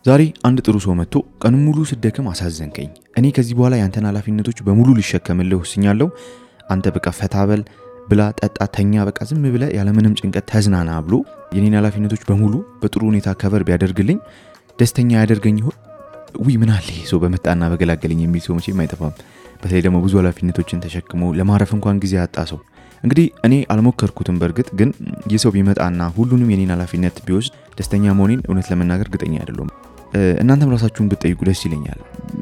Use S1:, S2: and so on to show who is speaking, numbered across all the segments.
S1: ዛሬ አንድ ጥሩ ሰው መጥቶ ቀኑን ሙሉ ስደከም አሳዘንከኝ። እኔ ከዚህ በኋላ ያንተን ኃላፊነቶች በሙሉ ልሸከምልህ ወስኛለሁ። አንተ በቃ ፈታበል ብላ ጠጣ ተኛ በቃ ዝም ብለህ ያለ ምንም ጭንቀት ተዝናና ብሎ የኔን ኃላፊነቶች በሙሉ በጥሩ ሁኔታ ከቨር ቢያደርግልኝ ደስተኛ ያደርገኝ ይሆን? ምን አለ ሰው በመጣና በገላገለኝ የሚል ሰው መቼም አይጠፋም። በተለይ ደግሞ ብዙ ኃላፊነቶችን ተሸክሞ ለማረፍ እንኳን ጊዜ ያጣ ሰው። እንግዲህ እኔ አልሞከርኩትም በርግጥ ግን የሰው ቢመጣና ሁሉንም የኔን ኃላፊነት ቢወስድ ደስተኛ መሆኔን እውነት ለመናገር እርግጠኛ አይደለም። እናንተም ራሳችሁን ብትጠይቁ ደስ ይለኛል።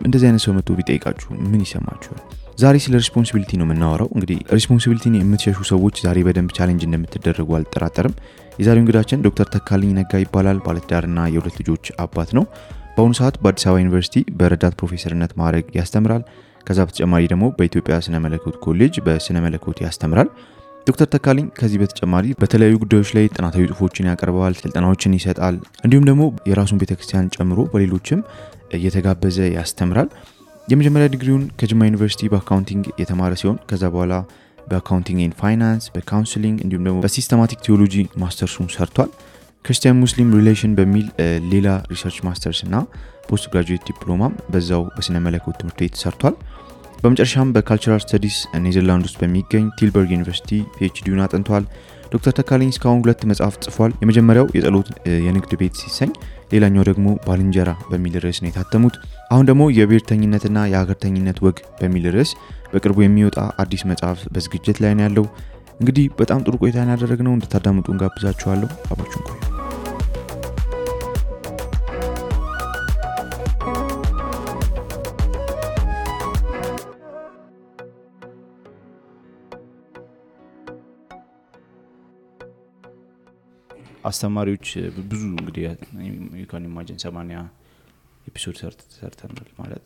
S1: እንደዚህ አይነት ሰው መጥቶ ቢጠይቃችሁ ምን ይሰማችኋል? ዛሬ ስለ ሪስፖንሲቢሊቲ ነው የምናወራው። እንግዲህ ሪስፖንሲቢሊቲን የምትሸሹ ሰዎች ዛሬ በደንብ ቻሌንጅ እንደምትደረጉ አልጠራጠርም። የዛሬው እንግዳችን ዶክተር ተካልኝ ነጋ ይባላል። ባለትዳርና የሁለት ልጆች አባት ነው። በአሁኑ ሰዓት በአዲስ አበባ ዩኒቨርሲቲ በረዳት ፕሮፌሰርነት ማዕረግ ያስተምራል። ከዛ በተጨማሪ ደግሞ በኢትዮጵያ ስነ መለኮት ኮሌጅ በስነ መለኮት ያስተምራል። ዶክተር ተካልኝ ከዚህ በተጨማሪ በተለያዩ ጉዳዮች ላይ ጥናታዊ ጽሁፎችን ያቀርባል፣ ስልጠናዎችን ይሰጣል። እንዲሁም ደግሞ የራሱን ቤተክርስቲያን ጨምሮ በሌሎችም እየተጋበዘ ያስተምራል። የመጀመሪያ ዲግሪውን ከጅማ ዩኒቨርሲቲ በአካውንቲንግ የተማረ ሲሆን ከዛ በኋላ በአካውንቲንግ ኤንድ ፋይናንስ፣ በካውንስሊንግ እንዲሁም ደግሞ በሲስተማቲክ ቲዮሎጂ ማስተርሱን ሰርቷል። ክርስቲያን ሙስሊም ሪሌሽን በሚል ሌላ ሪሰርች ማስተርስ እና ፖስት ግራጁዌት ዲፕሎማም በዛው በስነ መለኮት ትምህርት ቤት ሰርቷል። በመጨረሻም በካልቸራል ስተዲስ ኔዘርላንድ ውስጥ በሚገኝ ቲልበርግ ዩኒቨርሲቲ ፒኤችዲውን አጥንቷል። ዶክተር ተካልኝ እስካሁን 2 መጽሐፍት ጽፏል። የመጀመሪያው የጸሎት የንግድ ቤት ሲሰኝ፣ ሌላኛው ደግሞ ባልንጀራ በሚል ርዕስ ነው የታተሙት። አሁን ደግሞ የብሔርተኝነትና የሀገርተኝነት ወግ በሚል ርዕስ በቅርቡ የሚወጣ አዲስ መጽሐፍ በዝግጅት ላይ ነው ያለው። እንግዲህ በጣም ጥሩ ቆይታ ያደረግነው እንድታዳምጡ እንጋብዛችኋለሁ። አብራችሁን ቆዩ። አስተማሪዎች ብዙ እንግዲህ you imagine 80 ኤፒሶድ ሰርተናል ማለት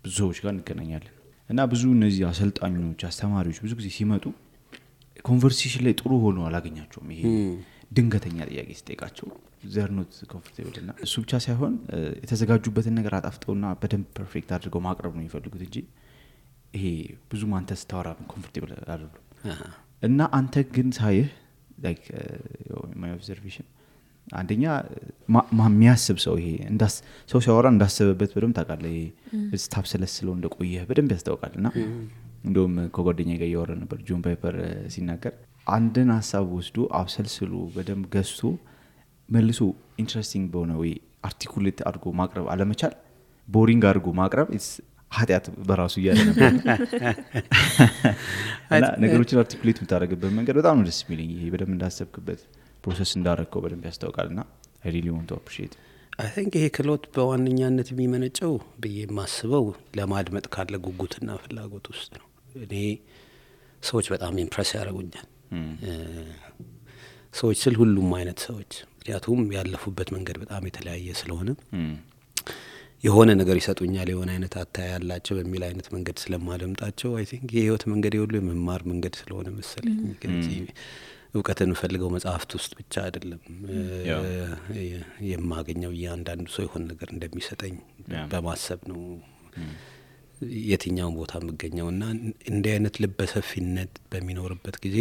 S1: ብዙ ሰዎች ጋር እንገናኛለን እና ብዙ እነዚህ አሰልጣኞች አስተማሪዎች ብዙ ጊዜ ሲመጡ ኮንቨርሴሽን ላይ ጥሩ ሆኖ አላገኛቸውም። ይሄ ድንገተኛ ጥያቄ ሲጠይቃቸው ዘርኖት ኮምፎርቴብል እና እሱ ብቻ ሳይሆን የተዘጋጁበትን ነገር አጣፍጠውና በደንብ ፐርፌክት አድርገው ማቅረብ ነው የሚፈልጉት እንጂ ይሄ ብዙ ማንተስ ታወራ ኮምፎርቴብል አይደሉም። እና አንተ ግን ሳይህ like my observation አንደኛ የሚያስብ ሰው ይሄ እንዳስ ሰው ሲያወራ እንዳሰበበት በደንብ ታውቃለህ። ይሄ ስታፍ ስለስለው እንደቆየ በደንብ ያስታውቃልና እንደውም ከጓደኛዬ ጋር ያወራ ነበር ጆን ፓይፐር ሲናገር አንድን ሐሳብ ወስዶ አብሰልስሎ በደንብ ገዝቶ መልሶ ኢንትረስቲንግ በሆነ ወይ አርቲኩሌት አድርጎ ማቅረብ አለመቻል ቦሪንግ አድርጎ ማቅረብ ኃጢአት በራሱ ያለ ነበር። እና ነገሮችን አርቲኩሌት የምታደርግበት መንገድ በጣም ነው ደስ የሚለኝ። ይሄ በደንብ እንዳሰብክበት ፕሮሰስ እንዳደረግከው በደንብ ያስታውቃልና I really want to appreciate.
S2: I think ይሄ ክሎት በዋነኛነት የሚመነጨው ብዬ ማስበው ለማድመጥ ካለ ጉጉትና ፍላጎት ውስጥ ነው። እኔ ሰዎች በጣም ኢምፕረስ ያደርጉኛል። ሰዎች ስል ሁሉም አይነት ሰዎች ምክንያቱም ያለፉበት መንገድ በጣም የተለያየ ስለሆነ የሆነ ነገር ይሰጡኛል የሆነ አይነት አታያ ያላቸው በሚል አይነት መንገድ ስለማደምጣቸው I think የህይወት መንገድ ይወሉ የመማር መንገድ ስለሆነ መሰለኝ ከዚህ እውቀትን ፈልገው መጽሐፍት ውስጥ ብቻ አይደለም የማገኘው ያንዳንዱ ሰው የሆነ ነገር እንደሚሰጠኝ በማሰብ ነው የትኛው ቦታ መገኘውና እንደ አይነት ልበሰፊነት በሚኖርበት ጊዜ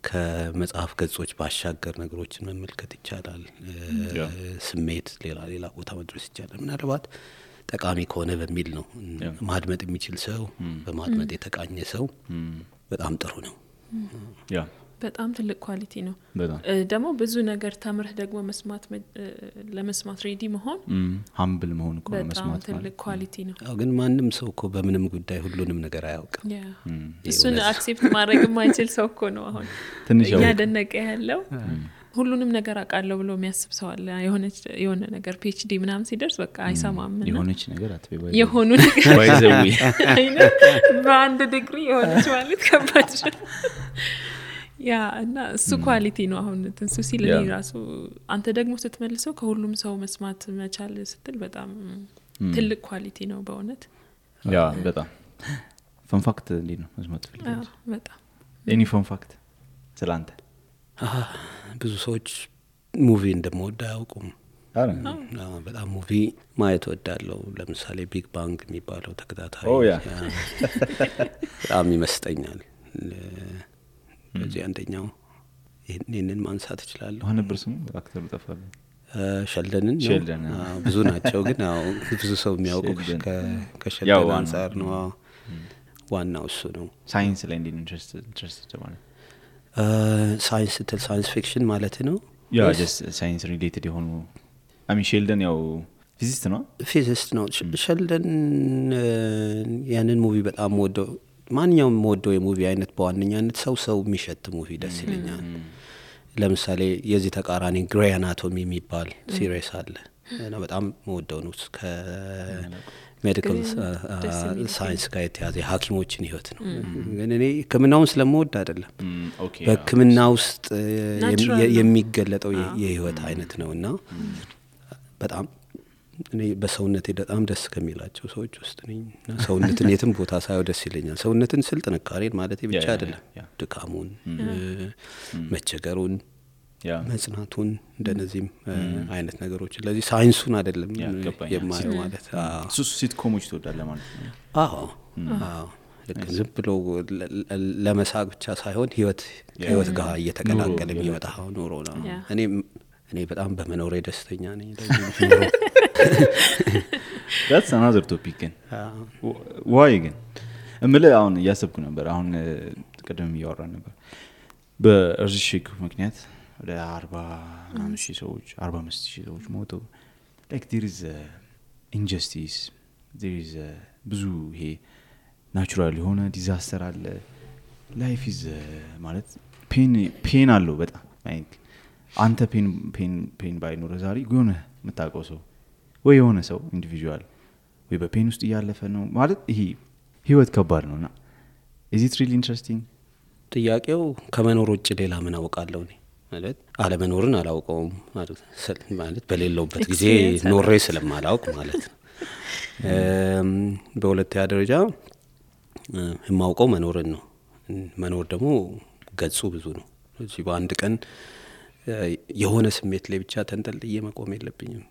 S2: ከመጽሐፍ ገጾች ባሻገር ነገሮችን መመልከት ይቻላል። ስሜት ሌላ ቦታ መድረስ ይቻላል። ምናልባት ጠቃሚ ከሆነ በሚል ነው ማድመጥ የሚችል ሰው በማድመጥ የተቃኘ ሰው በጣም ጥሩ ነው።
S3: ያ በጣም ትልቅ ኳሊቲ ነው። ደግሞ ብዙ ነገር ተምረህ ደግሞ ለመስማት ሬዲ መሆን
S1: ሃምብል መሆን እኮ መስማት
S3: ትልቅ ኳሊቲ ነው።
S2: ግን ማንም ሰው እኮ በምንም ጉዳይ ሁሉንም ነገር አያውቅም።
S3: እሱን አክሴፕት ማድረግ የማይችል ሰው እኮ ነው አሁን ያደነቀ ያለው። ሁሉንም ነገር አቃለው ብሎ የሚያስብ ሰው አለ። የሆነ ነገር PhD ምናምን ሲደርስ በቃ አይሰማም እና
S1: የሆነች ነገር አትበይ
S3: የሆኑ ነገር
S1: ባይዘው
S3: በአንድ ዲግሪ የሆነች ማለት ከባድ ያ እና እሱ ኳሊቲ ነው። አሁን እንሱ ሲል እኔ ራሱ አንተ ደግሞ ስትመልሰው ከሁሉም ሰው መስማት መቻል ስትል በጣም ትልቅ ኳሊቲ ነው በእውነት።
S1: ያ በጣም ፈን ፋክት እንዴ ነው መስማት ፈልገው
S3: በጣም
S1: ኤኒ ፈን ፋክት ስላንተ
S2: ብዙ ሰዎች ሙቪ እንደምወድ አያውቁም። በጣም ሙቪ ማየት ወዳለው ለምሳሌ ቢግ ባንግ የሚባለው ተከታታይ በጣም ይመስጠኛል። በዚህ አንደኛው ይሄንን ማንሳት ይችላል።
S1: አሁን ነበር ስሙ አክተሩ ጠፋለ
S2: ሸልደንን ብዙ ናቸው ግን ያው ብዙ ሰው የሚያውቀው ከሸልደን አንፃር ነው ዋናው እሱ ነው
S1: ሳይንስ ላይ እንዴት ኢንትረስትድ ማለት
S2: ሳይንስ ሳይንስ ፊክሽን ማለት ነው
S1: ያ just ሳይንስ ሪሌትድ የሆኑ ሸልደን ያው ፊዚስት ነው ሸልደን ያንን ሙቪ በጣም ወደው ማንኛውም ወደው የሙቪ አይነት በዋነኛነት ሰው የሚሸት ሙቪ ደስ ይለኛል ለምሳሌ የዚህ ተቃራኒ ግሬ አናቶሚ የሚባል ሲሪስ አለ እና በጣም ወደው ነው ከሜዲካል ሳይንስ ጋር የተያዘ ሐኪሞችን ህይወት ነው ግን እኔ ህክምናውን ስለምወድ አይደለም በህክምና ውስጥ የሚገለጠው የህይወት አይነት ነውና በጣም እኔ በሰውነቴ በጣም ደስ ከሚላቸው ሰዎች ውስጥ ነኝ ሰውነትን የትም ቦታ ሳይው ደስ ይለኛል ሰውነትን ስል ጥንካሬን ማለት ብቻ አይደለም ድካሙን መቸገሩን መጽናቱን እንደነዚህም አይነት ነገሮች ለዚህ ሳይንሱን አይደለም የማየው ማለት ሲትኮሞች ትወዳለህ ማለት ነው
S2: አዎ ዝም ብሎ ለመሳቅ ብቻ ሳይሆን ህይወት ጋር እየተቀላቀለ የሚወጣው ኑሮ ነው እኔ በጣም በመኖሬ ደስተኛ ነኝ
S1: that's another topic ግን why ግን እምልህ አሁን እያሰብኩ ነበር አሁን ቀደም እያወራን ነበር በእርዝሽክ ምክንያት ወደ 40,000 ሰዎች 45,000 ሰዎች ሞቱ like there is injustice there is ብዙ ይሄ ናቹራል የሆነ ዲዛስተር አለ life is ማለት ፔን አለው በጣም like አንተ ፔን ባይኖር ዛሬ የሆነ የምታውቀው ሰው ወይ የሆነ ሰው ኢንዲቪጁዋል ወይ በፔን ውስጥ እያለፈ ነው ማለት ይሄ ህይወት ከባድ ነውና is it really interesting
S2: ጥያቄው ከመኖር ውጭ ሌላ ምን አውቃለሁ እኔ ማለት አለመኖርን አላውቀውም ማለት በሌለውበት ጊዜ ኖሬ ስለማላውቅ ማለት ነው በሁለተኛ ደረጃ የማውቀው መኖርን ነው መኖር ደግሞ ገጹ ብዙ ነው እዚህ በአንድ ቀን የሆነ ስሜት ላይ ብቻ ተንጠልጥዬ መቆም የለብኝም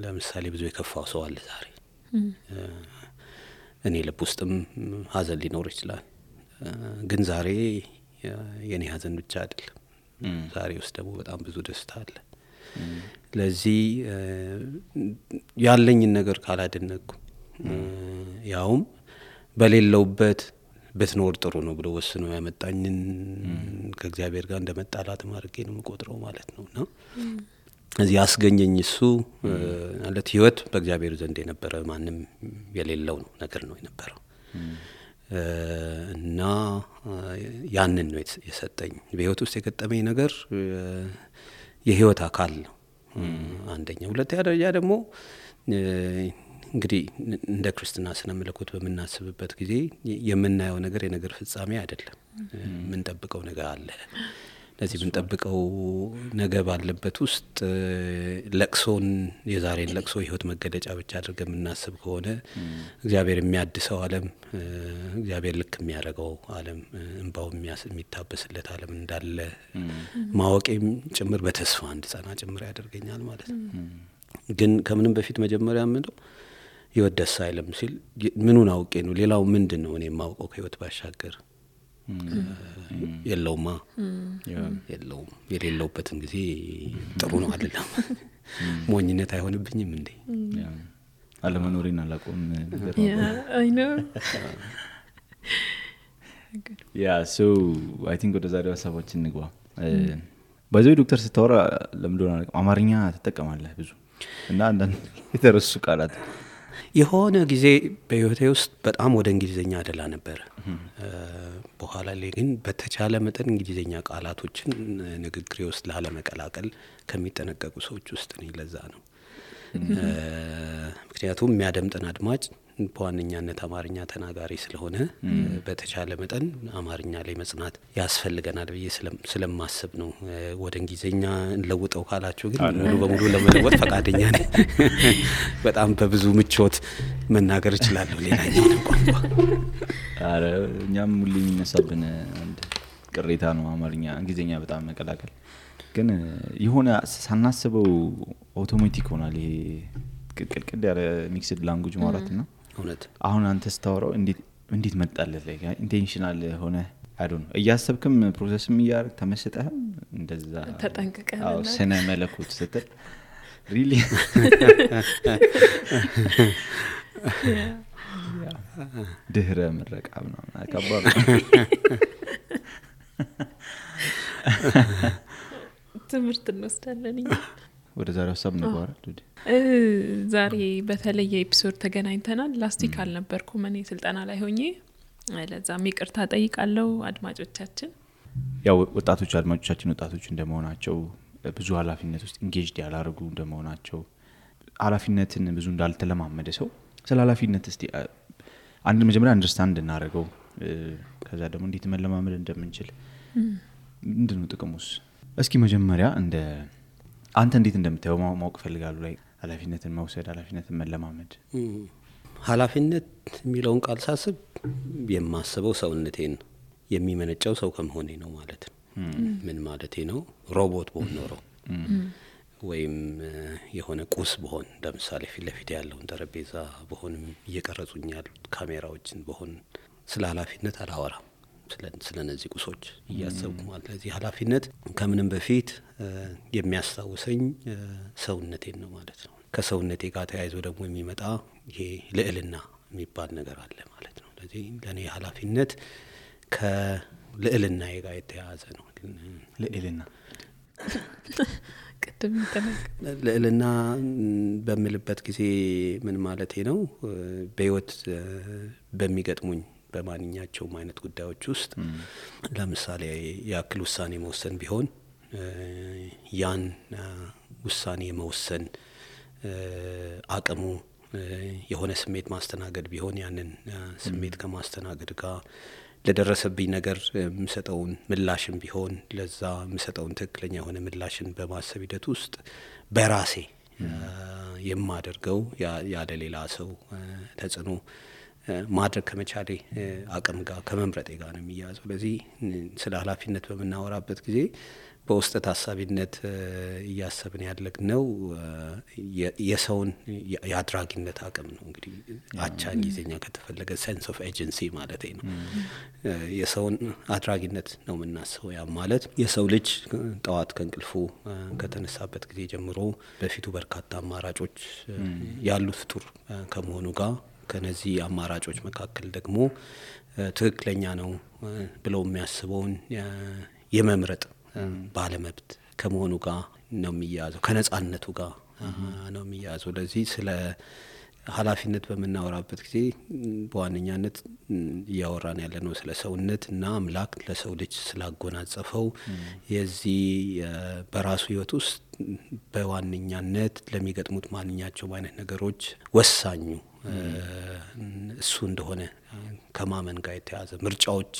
S2: ለምሳሌ ብዙ የከፋው ሰው አለ ዛሬ እኔ ልብ ውስጥም ሀዘን ሊኖር ይችላል ግን ዛሬ የኔ ሀዘን ብቻ አይደለም ዛሬ ውስጥ ደግሞ በጣም ብዙ ደስታ አለ ለዚህ ያለኝን ነገር ካላደነኩ ያውም በሌለውበት በትኖር ጥሩ ነው ብሎ ወስኖ ያመጣኝን ከእግዚአብሔር ጋር እንደመጣላት ማርጌ ነው መቆጥረው ማለት ነውና እዚህ ያስገኘኝ እሱ ማለት ህይወት በእግዚአብሔር ዘንድ የነበረ ማንንም የሌለው ነገር ነው የነበረው እና ያንን ነው የሰጠኝ በህይወት ውስጥ የገጠመኝ ነገር የህይወት አካል ነው አንደኛ ሁለተኛ ደረጃ ደግሞ እንግዲህ እንደ ክርስትና ስነ መለኮት በመናስብበት ጊዜ የምናየው ነገር የነገር ፍጻሜ አይደለም ምን ጠብቀው ነገር አለ ለዚህ ምን ጠብቀው ነገር ባለበት ውስጥ ለቅሶን የዛሬን ለቅሶ ህይወት መገለጫ ብቻ አድርገን እናስብ ከሆነ እግዚአብሔር የሚያድሰው ዓለም እግዚአብሔር ልክ የሚያደርገው ዓለም እንባው የሚታበስለት ዓለም እንዳለ ማወቄም ጭምር በተስፋ እንድጸና ጭምር ያደርገኛል ማለት ነው ግን ከምንም በፊት መጀመሪያ ምንድነው ህይወት ደስ አይልም ሲል ምኑን አውቄ ነው ሌላው ምንድነው እኔ ማውቀው ከህይወት ባሻገር የለውማ የለውም የሌለውበትን ጊዜ ጥሩ ነው አይደለም ሞኝነት አይሆንብኝም እንዴ
S1: አለመኖሬን አላቆም ነገር
S3: I know
S1: yeah so I think ወደ ዛሬው ሀሳባችን እንግባ በዚህ ዶክተር ስታወራ ለምንድነው አማርኛ ተጠቀማለህ ብዙ እና አንዳንድ የተረሱ ቃላት
S2: የሆነ ጊዜ በህይወቴ ውስጥ በጣም ወደ እንግሊዘኛ አደላ ነበር በኋላ ላይ ግን በተቻለ መጠን እንግሊዘኛ ቃላቶችን ንግግሬ ውስጥ ላለመቀላቀል ከሚጠነቀቁ ሰዎች ውስጥ ነኝ ለዛ ነው ምክንያቱም የሚያደምጠን አድማጭ በዋነኛነት አማርኛ ተናጋሪ ስለሆነ በተቻለ መጠን አማርኛ ላይ መጽናት ያስፈልገናል ብዬ ስለማስብ ነው ወደ እንግሊዘኛ እንለውጠው ካላችሁ ግን ሙሉ በሙሉ ለመለወጥ ፈቃደኛ ነኝ በጣም በብዙ ምቾት መናገር እችላለሁ ሌላኛው ቋንቋ
S1: አረ እኛም ሙሉ የሚነሳብን አንድ ቅሬታ ነው አማርኛ እንግሊዘኛ በጣም መቀላቀል ግን የሆነ ሳናስበው አውቶማቲክ ሆናል ይሄ ቅልቅል ያለ ሚክስድ ላንጉዌጅ ማለት ነው
S2: እውነት
S1: አሁን አንተ ስታወራው እንዴት መጣልህ ላይ ኢንቴንሽናል ሆነ አይ ዶንት እያሰብክም ፕሮሰስም እያደረክ ተመስጠህም
S4: እንደዛ
S3: ተጠንቀቀና
S4: ስነ መለኮት ስትል ሪሊ ድህረ ምረቃ ምናምን አካባቢ
S3: ትምህርት እንወስዳለን።
S4: ወደ ዛሬው ሀሳብ እንገባለን።
S3: ዛሬ በተለየ ኤፒሶድ ተገናኝተናል። ላስቲክ አልነበርኩም እኔ ስልጠና ላይ ሆኜ፣ ለዛም ይቅርታ ጠይቃለሁ አድማጮቻችን።
S4: ያው ወጣቶች አድማጮቻችን ወጣቶች እንደመሆናቸው ብዙ ኃላፊነት ውስጥ ኢንጌጅድ ያላረጉ እንደመሆናቸው ኃላፊነትን ብዙ እንዳልተለማመደ ሰው ስለ ኃላፊነት እስቲ አንድ መጀመሪያ አንደርስታንድ እናደርገው፣ ከዛ ደግሞ እንዴት መለማመድ እንደምንችል ምንድነው ጥቅሙስ? እስኪ መጀመሪያ እንደ አንተ እንዴት እንደምታየው ማወቅ ፈልጋለሁ። ላይ ኃላፊነትን መውሰድ ኃላፊነትን መለማመድ።
S2: ኃላፊነት የሚለውን ቃል ሳስብ የማስበው ሰውነቴን የሚመነጨው ሰው ከመሆኔ ነው ማለት ነው። ምን ማለቴ ነው? ሮቦት በሆን ኖሮ ወይም የሆነ ቁስ በሆን ለምሳሌ ፊት ለፊት ያለውን ጠረጴዛ በሆንም እየቀረጹኝ ያሉት ካሜራዎችን በሆን ስለ ኃላፊነት አላወራም። ስለ እነዚህ ቁሶች እያሰብኩ ማለት ለዚህ ኃላፊነት ከምንም በፊት የሚያስታውሰኝ ሰውነቴን ነው ማለት ነው። ከሰውነቴ ጋር ተያይዞ ደግሞ የሚመጣ ይሄ ልዕልና የሚባል ነገር አለ ማለት ነው። ለዚህ ለኔ ኃላፊነት ከልዕልናዬ ጋር የተያያዘ ነው።
S4: ልዕልና
S3: ቅድም
S2: ልዕልና በምልበት ጊዜ ምን ማለቴ ነው? በህይወት በሚገጥሙኝ በማንኛቸውም አይነት ጉዳዮች ውስጥ ለምሳሌ ያክል ውሳኔ መወሰን ቢሆን ያን ውሳኔ መወሰን አቅሙ የሆነ ስሜት ማስተናገድ ቢሆን ያንን ስሜት ከማስተናገድ ጋር ለደረሰብኝ ነገር የምሰጠውን ምላሽም ቢሆን ለዛ የምሰጠውን ትክክለኛ የሆነ ምላሽን በማሰብ ሂደት ውስጥ በራሴ የማደርገው ያለ ሌላ ሰው ተጽዕኖ ማድረግ ከመቻሌ አቅም ጋር ከመምረጤ ጋር ነው የሚያዘው። ለዚህ ስለ ኃላፊነት በመናወራበት ጊዜ በውስጥ ታሳቢነት እያሰብን ያለግነው የሰውን የአድራጊነት አቅም ነው። እንግዲህ አቻ እንግሊዝኛ ከተፈለገ ሴንስ ኦፍ ኤጀንሲ ማለት ነው። የሰውን አድራጊነት ነው የምናስበው። ያ ማለት የሰው ልጅ ጠዋት ከእንቅልፉ ከተነሳበት ጊዜ ጀምሮ በፊቱ በርካታ አማራጮች ያሉት ፍጡር ከመሆኑ ጋር ከነዚህ አማራጮች መካከል ደግሞ ትክክለኛ ነው ብለው የሚያስበውን የመምረጥ ባለመብት ከመሆኑ ጋር ነው የሚያዘው፣ ከነጻነቱ ጋር ነው የሚያዘው። ለዚህ ስለ ኃላፊነት በመናወራበት ጊዜ በዋነኛነት እያወራን ያለነው ስለ ሰውነት እና አምላክ ለሰው ልጅ ስላጎናጸፈው የዚህ በራሱ ህይወት ውስጥ በዋነኛነት ለሚገጥሙት ማንኛቸውም አይነት ነገሮች ወሳኙ እሱ እንደሆነ ከማመን ጋር የተያዘ ምርጫዎች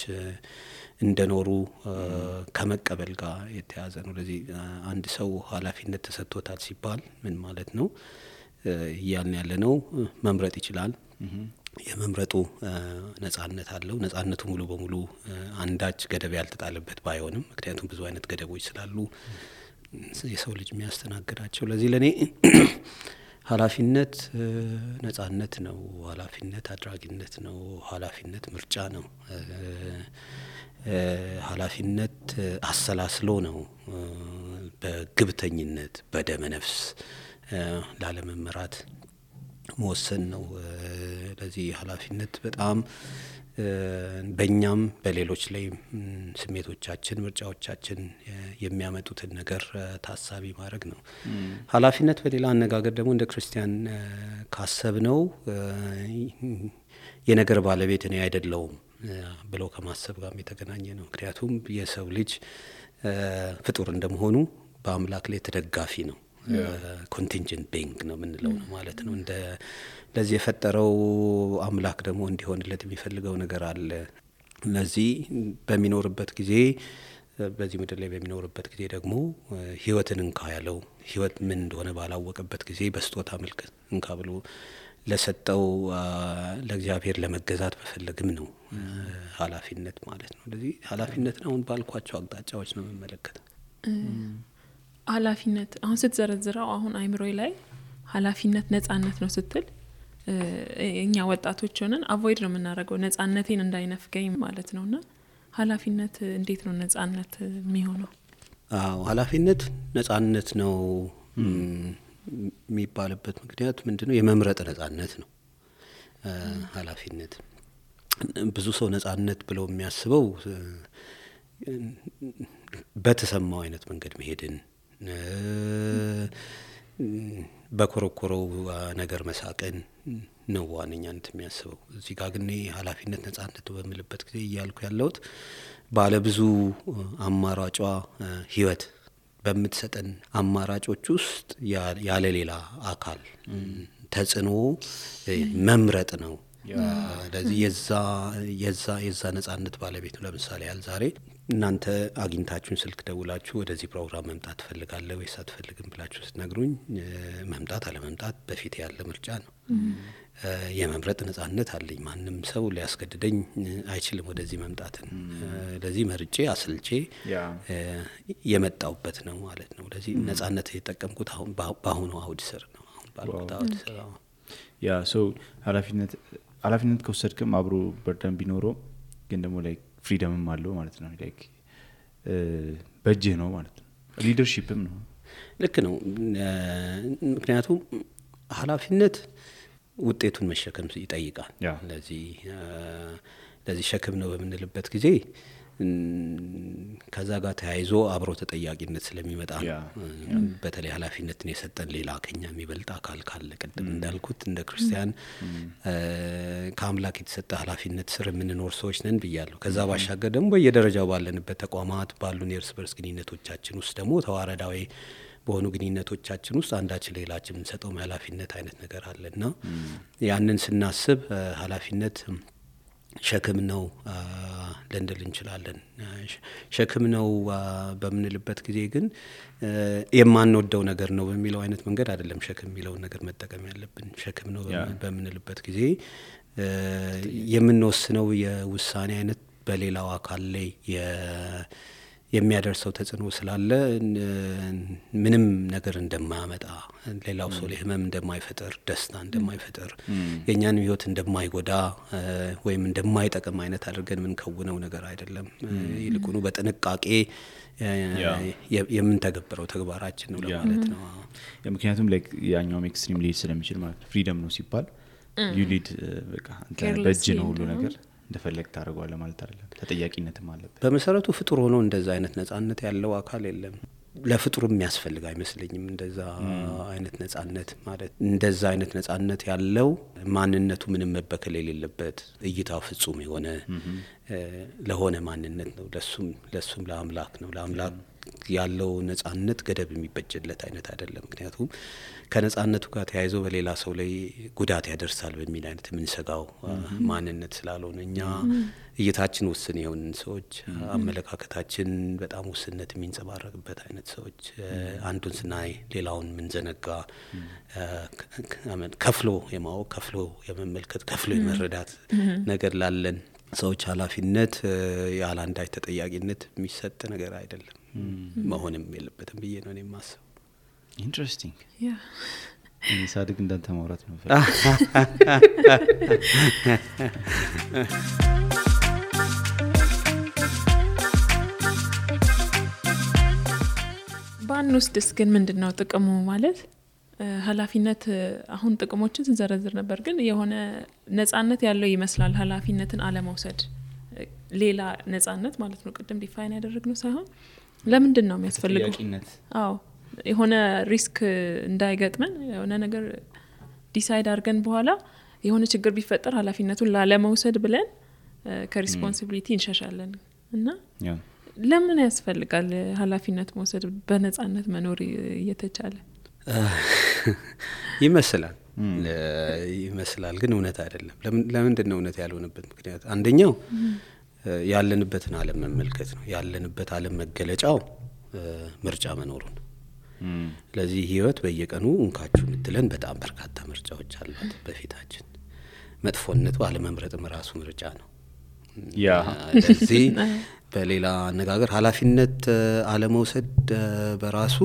S2: እንደኖሩ ከመቀበል ጋር የተያዘ ነው። ለዚህ አንድ ሰው ኃላፊነት ተሰጥቶታል ሲባል ምን ማለት ነው? እያልን ያለነው መምረጥ ይችላል። የመምረጡ ነጻነት አለው። ነጻነቱ ሙሉ በሙሉ አንዳች ገደብ ያልተጣለበት ባይሆንም፣ ምክንያቱም ብዙ አይነት ገደቦች ስላሉ የሰው ልጅ የሚያስተናግዳቸው። ለዚህ ለኔ ኃላፊነት ነጻነት ነው። ኃላፊነት አድራጊነት ነው። ኃላፊነት ምርጫ ነው። ኃላፊነት አሰላስሎ ነው። በግብተኝነት በደመ ነፍስ ላለመመራት መወሰን ነው። ለዚህ ኃላፊነት በጣም በእኛም በሌሎች ላይ ስሜቶቻችን፣ ምርጫዎቻችን የሚያመጡትን ነገር ታሳቢ ማድረግ ነው። ኃላፊነት በሌላ አነጋገር ደግሞ እንደ ክርስቲያን ካሰብነው የነገር ባለቤት እኔ አይደለሁም ብለው ከማሰብ ጋር የተገናኘ ነው። ምክንያቱም የሰው ልጅ ፍጡር እንደመሆኑ በአምላክ ላይ ተደጋፊ ነው። ኮንቲንጀንት ቢንግ ነው የምንለው ነው ማለት ነው። እንደ ለዚህ የፈጠረው አምላክ ደግሞ እንዲሆንለት የሚፈልገው ነገር አለ። ለዚህ በሚኖርበት ጊዜ በዚህ ምድር ላይ በሚኖርበት ጊዜ ደግሞ ህይወትን እንካ ያለው ህይወት ምን እንደሆነ ባላወቀበት ጊዜ በስጦታ መልክ እንካ ብሎ ለሰጠው ለእግዚአብሔር ለመገዛት በፈለግም ነው ኃላፊነት ማለት ነው። ለዚህ ኃላፊነትን አሁን ባልኳቸው አቅጣጫዎች ነው የምመለከተው።
S3: ኃላፊነት አሁን ስትዘረዝረው አሁን አይምሮይ ላይ ኃላፊነት ነጻነት ነው ስትል እኛ ወጣቶች ሆነን አቮይድ ነው የምናደርገው ነጻነቴን እንዳይነፍገኝ ማለት ነውና ኃላፊነት እንዴት ነው ነጻነት የሚሆነው?
S2: ኃላፊነት ነጻነት ነው የሚባልበት ምክንያት ምንድነው? የመምረጥ ነጻነት ነው ኃላፊነት። ብዙ ሰው ነጻነት ብለው የሚያስበው በተሰማው አይነት መንገድ መሄድን በኮረኮረው ነገር መሳቅን ነው ዋነኛነት የሚያስበው። እዚህ ጋር ግን ኃላፊነት ነጻነት በሚልበት ጊዜ እያልኩ ያለሁት ባለ ብዙ አማራጯ ህይወት በምትሰጠን አማራጮች ውስጥ ያለ ሌላ አካል ተጽዕኖ መምረጥ ነው። ስለዚህ የዛ ነጻነት ባለቤት ነው። ለምሳሌ ያህል ዛሬ እናንተ አግኝታችሁን ስልክ ደውላችሁ ወደዚህ ፕሮግራም መምጣት ትፈልጋለህ ወይስ አትፈልግም ብላችሁ ስትነግሩኝ መምጣት አለመምጣት በፊት ያለ ምርጫ ነው። የመምረጥ ነጻነት አለኝ። ማንም ሰው ሊያስገድደኝ አይችልም ወደዚህ መምጣትን። ለዚህ መርጬ አስልቼ የመጣውበት ነው ማለት ነው። ለዚህ ነጻነት የተጠቀምኩት አሁን በአሁኑ አውድ ስር ነው። አሁን ባልኩት አውድ ስር
S4: ያ ሰው ኃላፊነት ከወሰድክም አብሮ በርደን ቢኖረው ግን ደግሞ ላይክ ፍሪደምም አለው ማለት ነው። ላይክ በእጅህ ነው ማለት ነው። ሊደርሺፕም ነው።
S2: ልክ ነው። ምክንያቱም ኃላፊነት ውጤቱን መሸከም ይጠይቃል። ለዚህ ሸክም ነው በምንልበት ጊዜ ከዛ ጋር ተያይዞ አብሮ ተጠያቂነት ስለሚመጣ ነው። በተለይ ኃላፊነትን የሰጠን ሌላ ከኛ የሚበልጥ አካል ካለ ቅድም እንዳልኩት እንደ ክርስቲያን ከአምላክ የተሰጠ ኃላፊነት ስር የምንኖር ሰዎች ነን ብያለሁ። ከዛ ባሻገር ደግሞ በየደረጃው ባለንበት ተቋማት ባሉን የእርስ በርስ ግንኙነቶቻችን ውስጥ ደግሞ ተዋረዳዊ በሆኑ ግንኙነቶቻችን ውስጥ አንዳችን ሌላችን የምንሰጠው ኃላፊነት አይነት ነገር አለና ያንን ስናስብ ኃላፊነት ሸክም ነው ልንል እንችላለን። ሸክም ነው በምንልበት ጊዜ ግን የማንወደው ነገር ነው በሚለው አይነት መንገድ አይደለም ሸክም የሚለውን ነገር መጠቀም ያለብን። ሸክም ነው በምንልበት ጊዜ የምንወስነው የውሳኔ አይነት በሌላው አካል ላይ የሚያደርሰው ተጽዕኖ ስላለ ምንም ነገር እንደማያመጣ፣ ሌላው ሰው ላይ ህመም እንደማይፈጥር፣ ደስታ እንደማይፈጥር፣ የኛን ህይወት እንደማይጎዳ ወይም እንደማይጠቅም አይነት አድርገን ምን ከውነው ነገር አይደለም። ይልቁኑ በጥንቃቄ የምንተገብረው ተግባራችን ነው ለማለት ነው።
S4: ምክንያቱም ላይክ ያኛው ኤክስትሪም ሊድ ስለሚችል ማለት ፍሪደም ነው ሲባል ዩ ሊድ በቃ አንተ በእጅ ነው ሁሉ ነገር እንደፈለግ ታደርጓለህ ማለት አይደለም። ተጠያቂነትም አለበት። በመሰረቱ
S2: ፍጡር ሆኖ እንደዛ አይነት ነጻነት ያለው አካል የለም። ለፍጡርም የሚያስፈልግ አይመስለኝም እንደዛ አይነት ነጻነት ማለት። እንደዛ አይነት ነጻነት ያለው ማንነቱ ምንም መበከል የሌለበት እይታው ፍጹም የሆነ ለሆነ ማንነት ነው። ለሱም ለአምላክ ነው። ለአምላክ ያለው ነጻነት ገደብ የሚበጅለት አይነት አይደለም። ምክንያቱም ከነጻነቱ ጋር ተያይዞ በሌላ ሰው ላይ ጉዳት ያደርሳል በሚል አይነት የምንሰጋው ማንነት ስላልሆነ እኛ እይታችን ውስን የሆንን ሰዎች፣ አመለካከታችን በጣም ውስንነት የሚንጸባረቅበት አይነት ሰዎች፣ አንዱን ስናይ ሌላውን ምንዘነጋ፣ ከፍሎ የማወቅ ከፍሎ የመመልከት ከፍሎ የመረዳት ነገር ላለን ሰዎች ኃላፊነት ያለ አንዳች ተጠያቂነት የሚሰጥ ነገር አይደለም። መሆንም የለበትም ብዬ ነው የማስበው።
S4: ኢንትረስቲንግ ሳድግ እንዳንተ ማውራት ነው።
S3: ባንወስድስ ግን ምንድነው ጥቅሙ? ማለት ኃላፊነት አሁን ጥቅሞችን ስንዘረዝር ነበር፣ ግን የሆነ ነጻነት ያለው ይመስላል ኃላፊነትን አለመውሰድ። ሌላ ነጻነት ማለት ነው ቅድም ዲፋይን ያደረግነው ሳይሆን ለምንድን ነው የሚያስፈልገው? አዎ የሆነ ሪስክ እንዳይገጥመን የሆነ ነገር ዲሳይድ አድርገን በኋላ የሆነ ችግር ቢፈጠር ኃላፊነቱን ላለመውሰድ ብለን ከሪስፖንሲቢሊቲ እንሸሻለን። እና ለምን ያስፈልጋል ኃላፊነት መውሰድ በነጻነት መኖር እየተቻለ?
S2: ይመስላል ግን እውነት አይደለም። ለምንድን ነው እውነት ያልሆነበት ምክንያት? አንደኛው ያለንበትን ዓለም መመልከት ነው። ያለንበት ዓለም መገለጫው ምርጫ መኖሩን። ስለዚህ ህይወት በየቀኑ እንካችሁ ምትለን በጣም በርካታ ምርጫዎች አሏት በፊታችን። መጥፎነቱ አለመምረጥም ራሱ ምርጫ ነው። ስለዚህ በሌላ አነጋገር ኃላፊነት አለመውሰድ በራሱ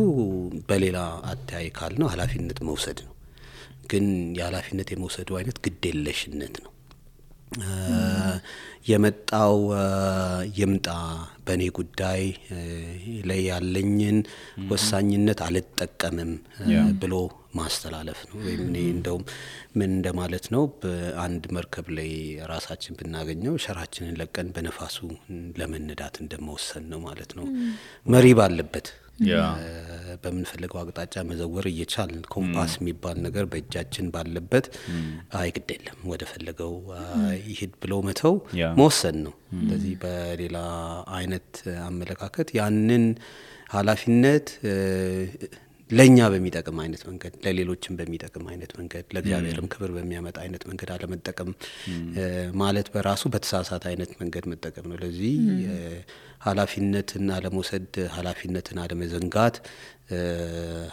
S2: በሌላ አታይ ካል ነው ኃላፊነት መውሰድ ነው። ግን የኃላፊነት የመውሰዱ አይነት ግዴለሽነት ነው። የመጣው ይምጣ በኔ ጉዳይ ላይ ያለኝን ወሳኝነት አልተጠቀምም ብሎ ማስተላለፍ ነው። ወይም እኔ እንደውም ምን እንደማለት ነው በአንድ መርከብ ላይ ራሳችን ብናገኘው ሸራችንን ለቀን በነፋሱ ለመነዳት እንደመወሰን ነው ማለት ነው። መሪ ባለበት በምንፈልገው አቅጣጫ መዘወር እየቻልን ኮምፓስ የሚባል ነገር በእጃችን ባለበት ግድ የለም ወደ ፈለገው ይሄድ ብሎ መተው መወሰን ነው። ስለዚህ በሌላ አይነት አመለካከት ያንን ኃላፊነት ለኛ በሚጠቅም አይነት መንገድ ለሌሎችም በሚጠቅም አይነት መንገድ ለእግዚአብሔርም ክብር በሚያመጣ አይነት መንገድ አለመጠቀም ማለት በራሱ በተሳሳተ አይነት መንገድ መጠቀም ነው። ለዚህ ኃላፊነትን አለመውሰድ፣ ኃላፊነትን አለመዘንጋት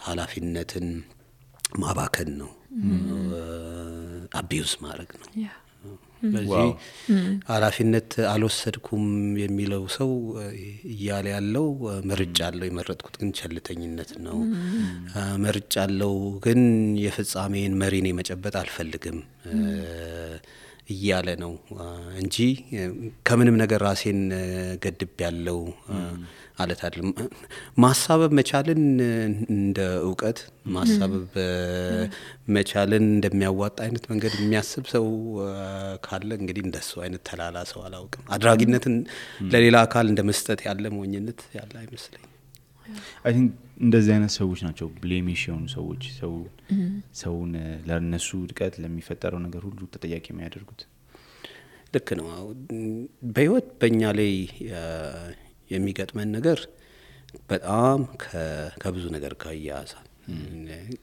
S2: ኃላፊነትን ማባከን ነው፣ አቢዩዝ ማድረግ ነው። በዚህ ኃላፊነት አልወሰድኩም የሚለው ሰው እያለ ያለው መርጫለሁ የመረጥኩት ግን ቸልተኝነት ነው፣ መርጫለሁ ግን የፍጻሜን መሪኔ መጨበጥ አልፈልግም እያለ ነው እንጂ ከምንም ነገር ራሴን ገድብ ያለው አለት አይደለም። ማሳበብ መቻልን እንደ ዕውቀት ማሳበብ መቻልን እንደሚያዋጣ አይነት መንገድ የሚያስብ ሰው ካለ እንግዲህ እንደሱ አይነት ተላላ ሰው አላውቅም። አድራጊነትን ለሌላ አካል እንደመስጠት ያለ ሞኝነት ያለ አይመስለኝም።
S4: አይ ቲንክ እንደዚህ አይነት ሰዎች ናቸው ብሌሚሽ የሆኑ ሰዎች ሰውን ለነሱ ድቀት ለሚፈጠረው ነገር ሁሉ ተጠያቂ የሚያደርጉት።
S2: ልክ ነው። በህይወት በእኛ ላይ የሚገጥመን ነገር በጣም ከብዙ ነገር ጋር ያያዛል።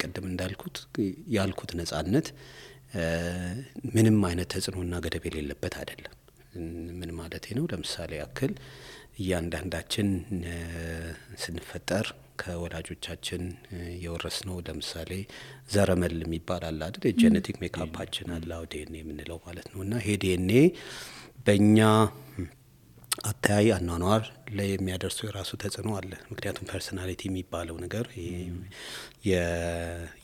S2: ቀደም እንዳልኩት ነጻነት ምንም አይነት ተጽዕኖና ገደብ የሌለበት አይደለም። ምን ማለት ነው? ለምሳሌ ያክል እያንዳንዳችን ስንፈጠር ከወላጆቻችን የወረስነው ለምሳሌ ዘረመል የሚባል አለ አይደል? የጄኔቲክ ሜካፓችን አለ ዲኤንኤ የምንለው ማለት ነው። እና ይሄ ዲኤንኤ በእኛ አታይ አኗኗር ላይ የሚያደርሰው የራሱ ተጽዕኖ አለ። ምክንያቱም ፐርሶናሊቲ የሚባለው ነገር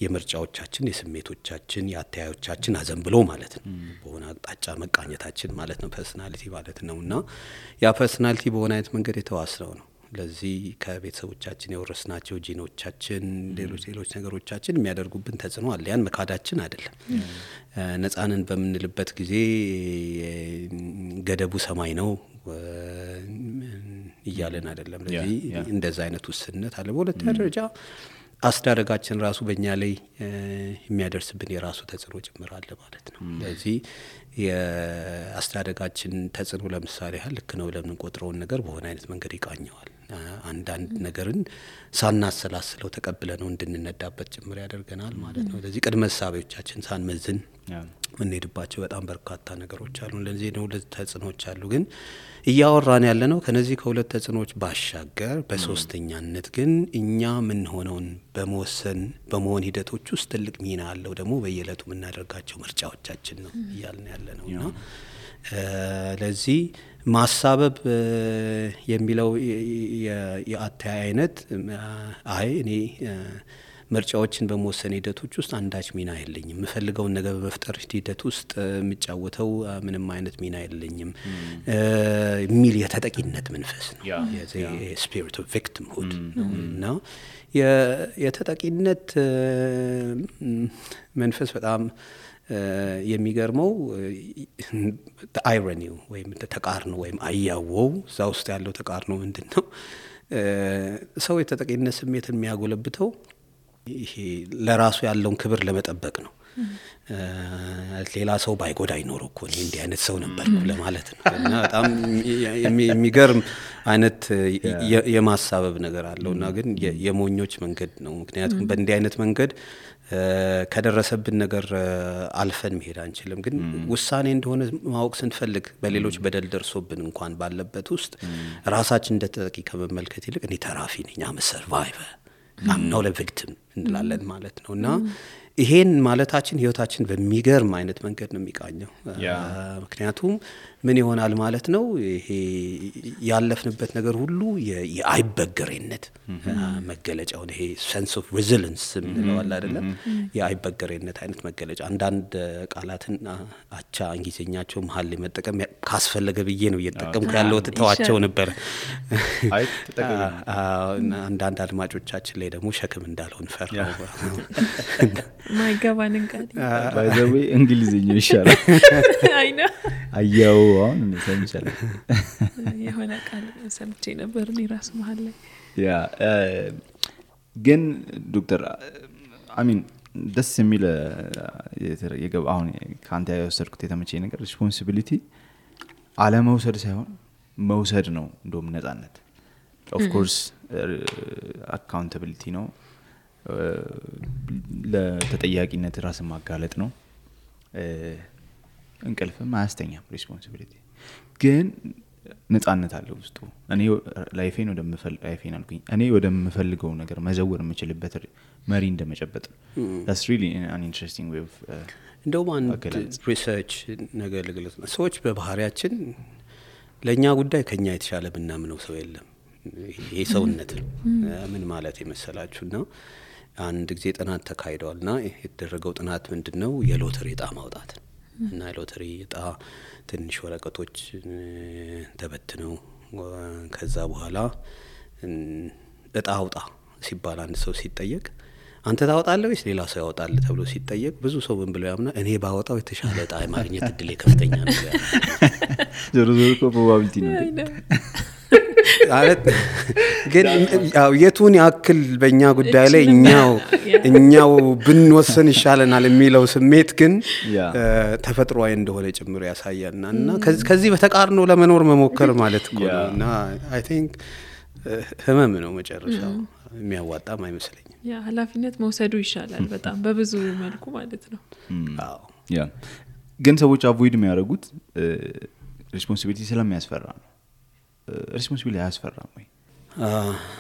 S2: የምርጫዎቻችን፣ የስሜቶቻችን፣ የአታዮቻችን አዘንብሎ ማለት ነው በሆነ አቅጣጫ መቃኘታችን ማለት ነው ፐርሶናሊቲ ማለት ነው። እና ያ ፐርሶናሊቲ በሆነ አይነት መንገድ የተዋስነው ነው። ለዚህ ከቤተሰቦቻችን የወረስናቸው ጂኖቻችን፣ ሌሎች ነገሮቻችን የሚያደርጉብን ተጽዕኖ አለ። ያን መካዳችን አይደለም። ነጻንን በምንልበት ጊዜ ገደቡ ሰማይ ነው እያለን አይደለም። ለዚህ እንደዛ አይነት ውስንነት አለ። በሁለተኛ ደረጃ አስተዳደጋችን ራሱ በእኛ ላይ የሚያደርስብን የራሱ ተጽዕኖ ጭምር አለ ማለት ነው። ለዚህ የአስተዳደጋችን ተጽዕኖ ለምሳሌ ልክ ነው ለምን ቆጥረውን ነገር በሆነ አይነት መንገድ ይቃኘዋል። አንዳንድ ነገርን ሳናሰላስለው ተቀብለነው እንድንነዳበት ጭምር ያደርገናል ማለት ነው። ለዚህ ቅድመ ሐሳቦቻችን ሳንመዝን ምንሄድባቸው በጣም በርካታ ነገሮች አሉ። ለዚህ ነው ሁለት ተጽዕኖች አሉ። ግን እያወራን ያለነው ከነዚህ ከሁለት ተጽዕኖች ባሻገር በሶስተኛነት ግን እኛ ምን ሆነውን በመሆን ሂደቶች ውስጥ ትልቅ ሚና አለው ደግሞ በየዕለቱ የምናደርጋቸው ምርጫዎቻችን ነው እያልን ያለነውና ለዚህ ማሳበብ የሚለው የአታይ አይነት እኔ ምርጫዎችን በመወሰን ሂደቶች ውስጥ አንዳች ሚና የለኝም፣ የምፈልገውን ነገር በመፍጠር ሂደት ውስጥ የሚጫወተው ምንም አይነት ሚና የለኝም የሚል የተጠቂነት መንፈስ ነው። ስፒሪት ኦፍ ቪክቲምሁድ እና የተጠቂነት መንፈስ በጣም የሚገርመው አይሮኒው ወይም ተቃርኖ ወይም አያወው እዛ ውስጥ ያለው ተቃርኖ ምንድነው? ሰው የተጠቂነት ስሜትን የሚያጎለብተው ይሄ ለራሱ ያለውን ክብር ለመጠበቅ ነው። ሌላ ሰው ባይጎዳ ይኖረው እኮ እኔ እንዲህ አይነት ሰው ነበርኩ ለማለት ነው። እና በጣም የሚገርም አይነት የማሳበብ ነገር አለውና ግን የሞኞች መንገድ ነው። ምክንያቱም በእንዲህ አይነት መንገድ ከደረሰብን ነገር አልፈን መሄድ አንችልም። ግን ውሳኔ እንደሆነ ማወቅ ስንፈልግ በሌሎች በደል ደርሶብን እንኳን ባለበት ውስጥ ራሳችን እንደተጠቂ ከመመልከት ይልቅ እኔ ተራፊ ነኝ፣ አም ሰርቫይቨር አም ኖት አ ቪክቲም እንላለን ማለት ነው። እና ይሄን ማለታችን ህይወታችን በሚገርም አይነት መንገድ ነው የሚቃኘው። ምክንያቱም ምን ይሆናል ማለት ነው ይሄ ያለፍንበት ነገር ሁሉ የአይበገሬነት መገለጫው ይሄ sense of resilience ምንለው አለ አይደለ? የአይበገሬነት አይነት መገለጫ አንዳንድ ቃላትን አቻ እንግሊዘኛቸው መሃል ላይ መጠቀም ካስፈለገ ብዬ ነው እየተጠቀምኩ ያለው ተዋቸው ነበር።
S4: አይ ተጠቀም
S2: አንዳንድ አድማጮቻችን ላይ ደግሞ ሸክም እንዳልሆን ፈራው።
S3: ማይገባንን ቃል
S4: by the way እንግሊዘኛው ይሻላል።
S3: አይ ነው
S4: አያው አሁን ሰምቻለሁ።
S3: የሆነ ቃል ሰምቼ ነበር እኔ ራስ መሃል ላይ
S4: ያ ግን ዶክተር አሚን ደስ የሚል የገባ አሁን ካንተ ያወሰድኩት የተመቸኝ ነገር ሪስፖንሲቢሊቲ አለመውሰድ ሳይሆን መውሰድ ነው። እንደውም ነፃነት ኦፍ ኮርስ አካውንታቢሊቲ ነው፣ ለተጠያቂነት ራስን ማጋለጥ ነው። እንቅልፍም አያስተኛም ሪስፖንሲቢሊቲ ግን ነፃነት አለው ውስጡ። እኔ ላይፌን ወደምፈልገው ነገር መዘወር የምችልበት መሪ እንደመጨበጥ that's really an interesting way of
S2: እንደውም አንድ ሪሰርች ነገር ልግለጽ ነው። ሰዎች በባህሪያችን ለኛ ጉዳይ ከኛ የተሻለ ብናምነው ሰው የለም። ይሄ ሰውነት ነው። ምን ማለት የመሰላችሁና አንድ ጊዜ ጥናት ተካሂዷልና የተደረገው ጥናት ምንድነው የሎተሪ ዕጣ ማውጣት እና የሎተሪ ዕጣ ትንሽ ወረቀቶች ተበትነው ከዛ በኋላ ዕጣ አውጣ ሲባል አንድ ሰው ሲጠየቅ አንተ ታወጣለህ ወይስ ሌላ ሰው ያወጣል ተብሎ ሲጠየቅ ብዙ ሰው ምን ብለው ያምና እኔ ባወጣው የተሻለ ዕጣ ማግኘት እድል ከፍተኛ ነው ያለው።
S4: ዞሮ ፕሮባቢሊቲ ነው
S2: ማለት ግን ያው የቱን ያክል በእኛ ጉዳይ ላይ እኛው ብንወሰን ይሻለናል የሚለው ስሜት ግን ተፈጥሯዊ እንደሆነ ጭምር ያሳያልና እና ከዚህ በተቃርኖ ለመኖር መሞከር ማለት እኮ ነው። እና አይ ቲንክ ህመም ነው መጨረሻው፣ የሚያዋጣም አይመስለኝም።
S3: ያ ኃላፊነት መውሰዱ ይሻላል በጣም በብዙ መልኩ ማለት ነው።
S2: አዎ
S4: ያ ግን ሰዎች አቮይድ የሚያደርጉት ሪስፖንሲቢሊቲ ስለሚያስፈራ ነው። ሪስፖንሲቢሊቲ አያስፈራም ወይ?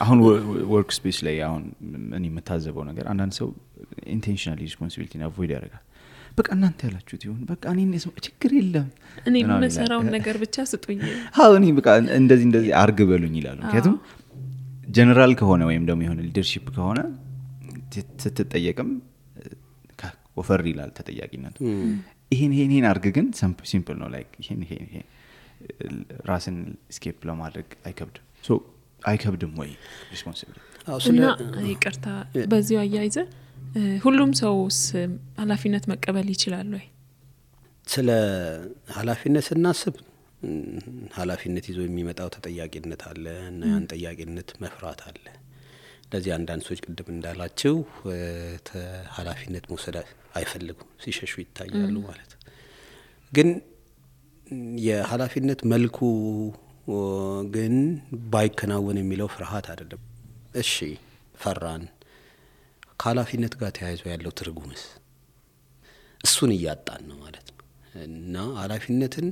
S4: አሁን ወርክ ስፔስ ላይ አሁን እኔ የምታዘበው ነገር አንዳንድ ሰው ኢንቴንሽናሊ ሪስፖንሲቢሊቲን አቮይድ ያደርጋል። በቃ እናንተ ያላችሁት ይሁን በቃ እኔ ችግር የለም
S3: እኔ የምሰራውን ነገር ብቻ ስጡኝ።
S4: አዎ እኔ በቃ እንደዚህ አርግ በሉኝ ይላሉ። ምክንያቱም ጀነራል ከሆነ ወይም ደግሞ የሆነ ሊደርሺፕ ከሆነ ስትጠየቅም ወፈር ይላል ተጠያቂነቱ። ይሄን አርግ ግን ሲምፕል ነው ላይክ ይሄን ራስን ስኬፕ ለማድረግ አይከብድም ወይ ሪስፖንሲቢሊቲ?
S3: እና ይቅርታ በዚሁ አያይዘ ሁሉም ሰውስ ኃላፊነት መቀበል ይችላል ወይ?
S2: ስለ ኃላፊነት ስናስብ ኃላፊነት ይዞ የሚመጣው ተጠያቂነት አለ እና ያን ተጠያቂነት መፍራት አለ። ለዚህ አንዳንድ ሰዎች ቅድም እንዳላችሁ ኃላፊነት መውሰድ አይፈልጉም፣ ሲሸሹ ይታያሉ ማለት ግን የኃላፊነት መልኩ ግን ባይከናወን የሚለው ፍርሃት አይደለም። እሺ ፈራን፣ ከኃላፊነት ጋር ተያይዞ ያለው ትርጉምስ እሱን እያጣን ነው ማለት ነው። እና ኃላፊነትን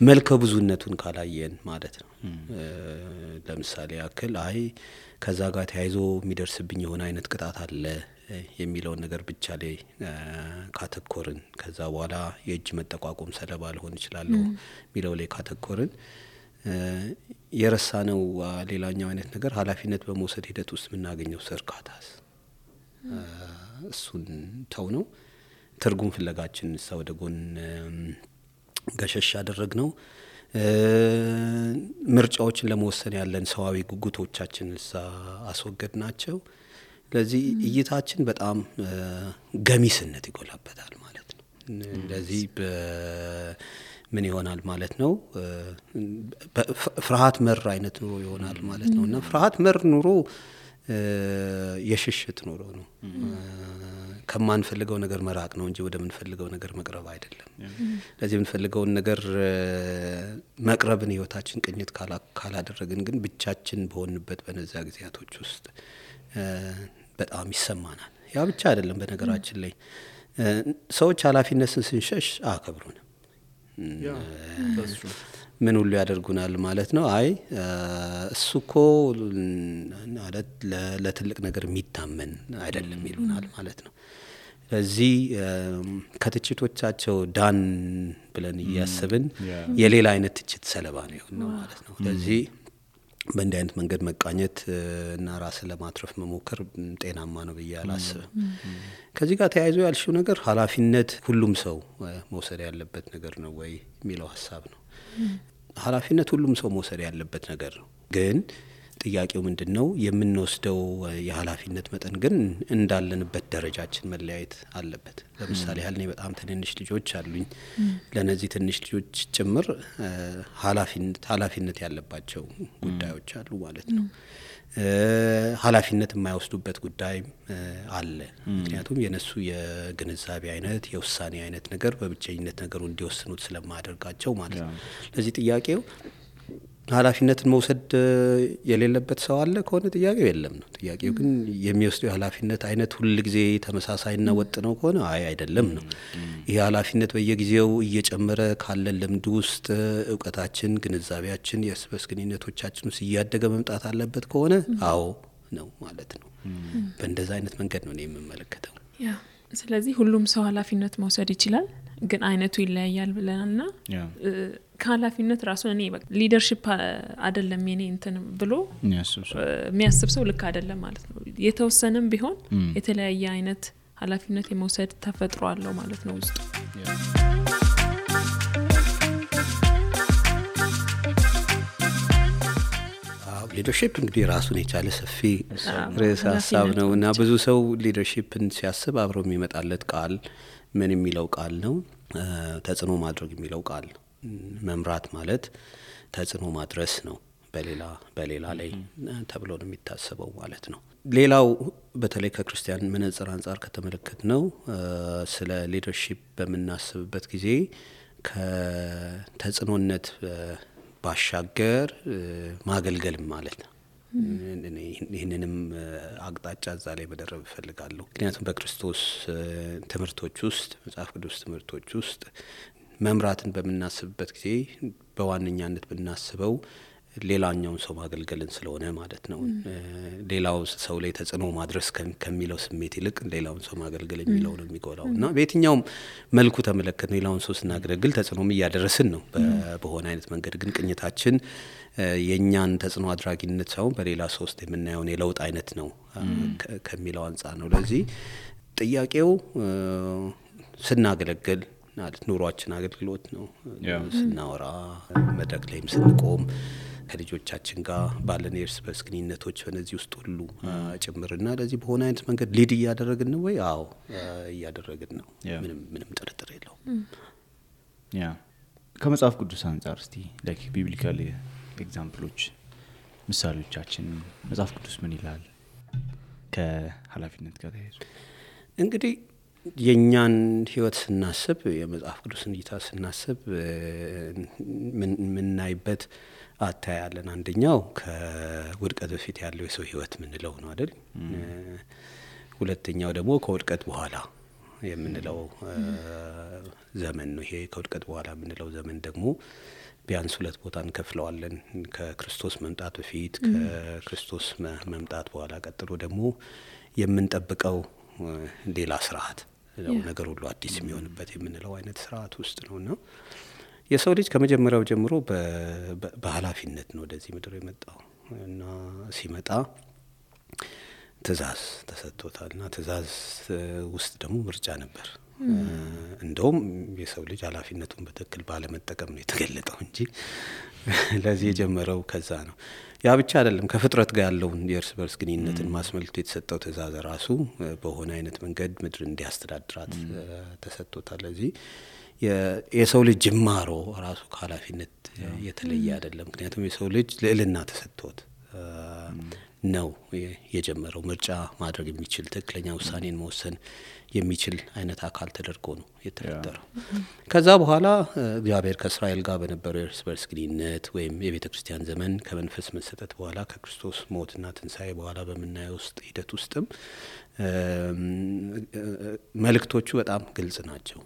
S2: መልከ ብዙነቱን ካላየን ማለት ነው። ለምሳሌ ያክል ከዛ ጋር ተያይዞ የሚደርስብኝ የሆነ አይነት ቅጣት አለ የሚለውን ነገር ብቻ ላይ ካተኮርን ከዛ በኋላ የእጅ መጠቋቆም ሰለባ ሊሆን ይችላል የሚለው ላይ ካተኮርን የረሳነው ሌላኛው አይነት ነገር ኃላፊነት በመውሰድ ሂደት ውስጥ የምናገኘው እርካታስ እሱን ተው ነው። ትርጉም ፍለጋችን ወደ ጎን ገሸሽ ያደረግነው ምርጫዎችን ለመወሰን ያለን ሰዋዊ ጉጉቶቻችን አስወገድናቸው። ለዚህ እይታችን በጣም ገሚስነት ይጎላበታል ማለት ነው። ለዚህ ምን ይሆናል ማለት ነው? ፍርሃት መር አይነት ኑሮ ይሆናል ማለት ነው። እና ፍርሃት መር ኑሮ የሽሽት ኑሮ ነው። ከማንፈልገው ነገር መራቅ ነው እንጂ ወደምንፈልገው ነገር መቅረብ አይደለም። ለዚህ የምንፈልገውን ነገር መቅረብን ህይወታችን ቅኝት ካላደረግን ግን ብቻችን በሆንበት በነዛ ጊዜያቶች ውስጥ በጣም ይሰማናል። ያ ብቻ አይደለም። በነገራችን ላይ ሰዎች ኃላፊነትን ስንሸሽ አከብሩንም ምን ሁሉ ያደርጉናል ማለት ነው። እሱኮ ለትልቅ ነገር የሚታመን አይደለም ይሉናል ማለት ነው። ስለዚህ ከትችቶቻቸው ዳን ብለን እያስብን የሌላ አይነት ትችት ሰለባ ነው የሆነው ማለት ነው። ስለዚህ በእንዲህ አይነት መንገድ መቃኘት እና ራስን ለማትረፍ መሞከር ጤናማ ነው ብዬ አላስብም። ከዚህ ጋር ተያይዞ ያልሽው ነገር ኃላፊነት ሁሉም ሰው መውሰድ ያለበት ነገር ነው ወይ የሚለው ሀሳብ ነው። ኃላፊነት ሁሉም ሰው መውሰድ ያለበት ነገር ነው። ግን ጥያቄው ምንድነው የምንወስደው የኃላፊነት መጠን ግን እንዳለንበት ደረጃችን መለያየት አለበት። ለምሳሌ ያህል እኔ በጣም ትንንሽ ልጆች አሉኝ። ለነዚህ ትንሽ ልጆች ጭምር ኃላፊነት ያለባቸው ጉዳዮች አሉ ማለት ነው። ኃላፊነት የማይወስዱበት ጉዳይ አለ። ምክንያቱም የነሱ የግንዛቤ አይነት የውሳኔ አይነት ነገር በብቸኝነት ነገሩ እንዲወስኑት ስለማያደርጋቸው ማለት ነው። ለዚህ ጥያቄው ኃላፊነትን መውሰድ የሌለበት ሰው አለ ከሆነ ጥያቄው የለም ነው። ጥያቄው ግን የሚወስደው የኃላፊነት አይነት ሁሉ ጊዜ ተመሳሳይና ወጥ ነው ከሆነ አይደለም ነው። ይሄ ኃላፊነት በየጊዜው እየጨመረ ካለን ልምድ ውስጥ እውቀታችን፣ ግንዛቤያችን፣ የእርስ በርስ ግንኙነቶቻችን ውስጥ እያደገ መምጣት አለበት ከሆነ አዎ ነው ማለት ነው። በእንደዛ አይነት መንገድ ነው እኔ የምመለከተው።
S3: ያ ስለዚህ ሁሉም ሰው ኃላፊነት መውሰድ ይችላል፣ ግን አይነቱ ይለያያል ብለናልና ከኃላፊነት ራሱ እኔ ሊደርሺፕ አይደለም የኔ እንትን ብሎ የሚያስብ ሰው ልክ አይደለም ማለት ነው። የተወሰነም ቢሆን የተለያየ አይነት ኃላፊነት የመውሰድ ተፈጥሮ አለው ማለት ነው ውስጡ።
S2: ሊደርሺፕ እንግዲህ ራሱን የቻለ ሰፊ ርዕሰ ሀሳብ ነው እና ብዙ ሰው ሊደርሺፕን ሲያስብ አብሮ የሚመጣለት ቃል ምን የሚለው ቃል ነው? ተጽዕኖ ማድረግ የሚለው ቃል ነው። መምራት ማለት ተጽዕኖ ማድረስ ነው በሌላ ላይ ተብሎ ነው የሚታሰበው ማለት ነው። ሌላው በተለይ ከክርስቲያን መነጽር አንጻር ከተመለከት ነው ስለ ሊደርሺፕ በምናስብበት ጊዜ ከተጽዕኖነት ባሻገር ማገልገልም ማለት ነው። ይህንንም አቅጣጫ እዛ ላይ መደረብ እፈልጋለሁ። ምክንያቱም በክርስቶስ ትምህርቶች ውስጥ መጽሐፍ ቅዱስ ትምህርቶች ውስጥ መምራትን በምናስብበት ጊዜ በዋነኛነት ብናስበው ሌላኛውን ሰው ማገልገልን ስለሆነ ማለት ነው። ሌላው ሰው ላይ ተጽዕኖ ማድረስ ከሚለው ስሜት ይልቅ ሌላውን ሰው ማገልገል የሚለው ነው የሚጎላው እና በየትኛውም መልኩ ተመለከት ሌላውን ሰው ስናገለግል ተጽዕኖም እያደረስን ነው በሆነ አይነት መንገድ። ግን ቅኝታችን የእኛን ተጽዕኖ አድራጊነት ሳይሆን በሌላ ሰው ውስጥ የምናየውን የለውጥ አይነት ነው ከሚለው አንጻር ነው። ለዚህ ጥያቄው ስናገለግል ማለት ኑሯችን አገልግሎት ነው። ስናወራ መድረክ ላይም ስንቆም ከልጆቻችን ጋር ባለን የእርስ በርስ ግንኙነቶች በነዚህ ውስጥ ሁሉ ጭምርና ለዚህ በሆነ አይነት መንገድ ሊድ እያደረግን ነው ወይ? አዎ እያደረግን ነው። ምንም ጥርጥር የለውም።
S4: ከመጽሐፍ ቅዱስ አንጻር እስቲ ላይክ ቢብሊካል ኤግዛምፕሎች ምሳሌዎቻችን መጽሐፍ ቅዱስ ምን ይላል ከኃላፊነት ጋር ተያይዞ?
S2: እንግዲህ የኛን ህይወት ስናስብ የመጽሐፍ ቅዱስን እይታ ስናስብ ምናይበት አታያለን። አንደኛው ከውድቀት በፊት ያለው የሰው ህይወት ምንለው ነው አይደል? ሁለተኛው ደግሞ ከውድቀት በኋላ የምንለው ዘመን ነው። ይሄ ከውድቀት በኋላ የምንለው ዘመን ደግሞ ቢያንስ ሁለት ቦታ እንከፍለዋለን። ከክርስቶስ መምጣት በፊት፣ ከክርስቶስ መምጣት በኋላ፣ ቀጥሎ ደግሞ የምንጠብቀው ሌላ ስርዓት ነገር ሁሉ አዲስ የሚሆንበት የምንለው አይነት ስርዓት ውስጥ ነውና የሰው ልጅ ከመጀመሪያው ጀምሮ በኃላፊነት ነው ወደዚህ ምድር የመጣው እና ሲመጣ ትእዛዝ ተሰጥቶታልና ትእዛዝ ውስጥ ደግሞ ምርጫ ነበር። እንደውም የሰው ልጅ ኃላፊነቱን በትክክል ባለመጠቀም ነው የተገለጠው እንጂ ለዚህ የጀመረው ከዛ ነው። ያ ብቻ አይደለም። ከፍጥረት ጋር ያለውን የእርስ በርስ ግንኙነትን ማስመልከት የተሰጠው ትእዛዝ ራሱ በሆነ አይነት መንገድ ምድር እንዲያስተዳድራት ተሰጥቶታል። ለዚህ የሰው ልጅ ጅማሮ ራሱ ከኃላፊነት የተለየ አይደለም። ምክንያቱም የሰው ልጅ ልዕልና ተሰጥቶት ነው የጀመረው። ምርጫ ማድረግ የሚችል ትክክለኛ ውሳኔን መወሰን የሚችል አይነት አካል ተደርጎ ነው የተፈጠረው። ከዛ በኋላ እግዚአብሔር ከእስራኤል ጋር በነበረው የእርስ በርስ ግንኙነት ወይም የቤተ ክርስቲያን ዘመን ከመንፈስ መሰጠት በኋላ ከክርስቶስ ሞትና ትንሣኤ በኋላ በምናየው ውስጥ ሂደት ውስጥም መልእክቶቹ በጣም ግልጽ ናቸው።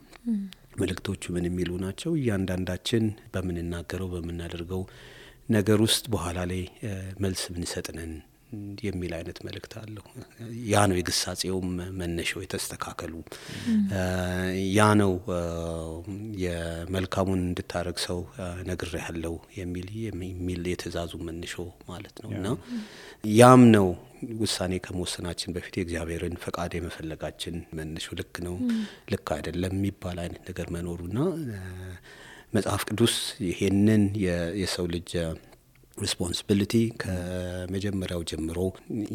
S2: መልእክቶቹ ምን የሚሉ ናቸው? እያንዳንዳችን በምንናገረው በምናደርገው ነገር ውስጥ በኋላ ላይ መልስ ምንሰጥነን የሚል አይነት መልእክት አለው። ያ ነው የግሳጼውም መነሻው የተስተካከሉ ያ ነው የመልካሙን እንድታረግ ሰው ነግሬሃለሁ የሚል የትእዛዙ መነሻው ማለት ነው። እና ያም ነው ውሳኔ ከመወሰናችን በፊት የእግዚአብሔርን ፈቃድ የመፈለጋችን መነሻው ልክ ነው ልክ አይደለም የሚባል አይነት ነገር መኖሩና መጽሐፍ ቅዱስ ይሄንን የሰው ልጅ ሪስፖንሲቢሊቲ ከመጀመሪያው ጀምሮ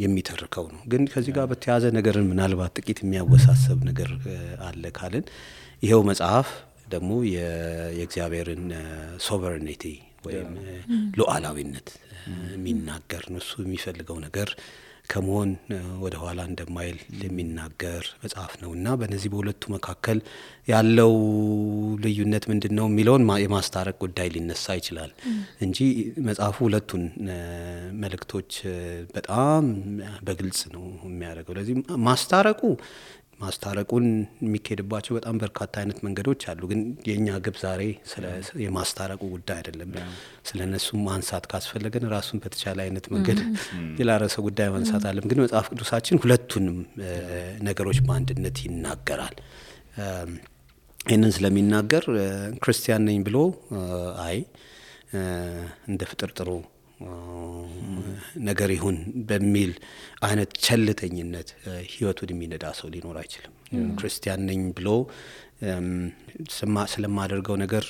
S2: የሚተርከው ነው። ግን ከዚህ ጋር በተያያዘ ነገርን ምናልባት ጥቂት የሚያወሳሰብ ነገር አለ ካልን ይሄው መጽሐፍ ደግሞ የእግዚአብሔርን ሶቨሬኒቲ ወይም ሉዓላዊነት የሚናገር ነው። እሱ የሚፈልገው ነገር ከመሆን ወደ ኋላ እንደማይል የሚናገር መጽሐፍ ነውና በእነዚህ በሁለቱ መካከል ያለው ልዩነት ምንድነው የሚለውን የማስታረቅ ጉዳይ ሊነሳ ይችላል እንጂ መጽሐፉ ሁለቱን መልእክቶች በጣም በግልጽ ነው የሚያደርገው። ለዚህ ማስታረቁን የሚካሄድባቸው በጣም በርካታ አይነት መንገዶች አሉ። ግን የኛ ግብ ዛሬ ስለ የማስታረቁ ጉዳይ አይደለም። ስለነሱ ማንሳት ካስፈለገን ራሱን በተቻለ አይነት መንገድ የላረሰ ጉዳይ ማንሳት አለም። ግን መጽሐፍ ቅዱሳችን ሁለቱንም ነገሮች በአንድነት ይናገራል። ይህንን ስለሚናገር ክርስቲያን ነኝ ብሎ እንደ ፍጥርጥሩ ነገር ይሁን በሚል አይነት ቸልተኝነት ህይወቱን የሚነዳ ሰው ሊኖር አይችልም። ክርስቲያን ነኝ ብሎ ስለማደርገው ነገር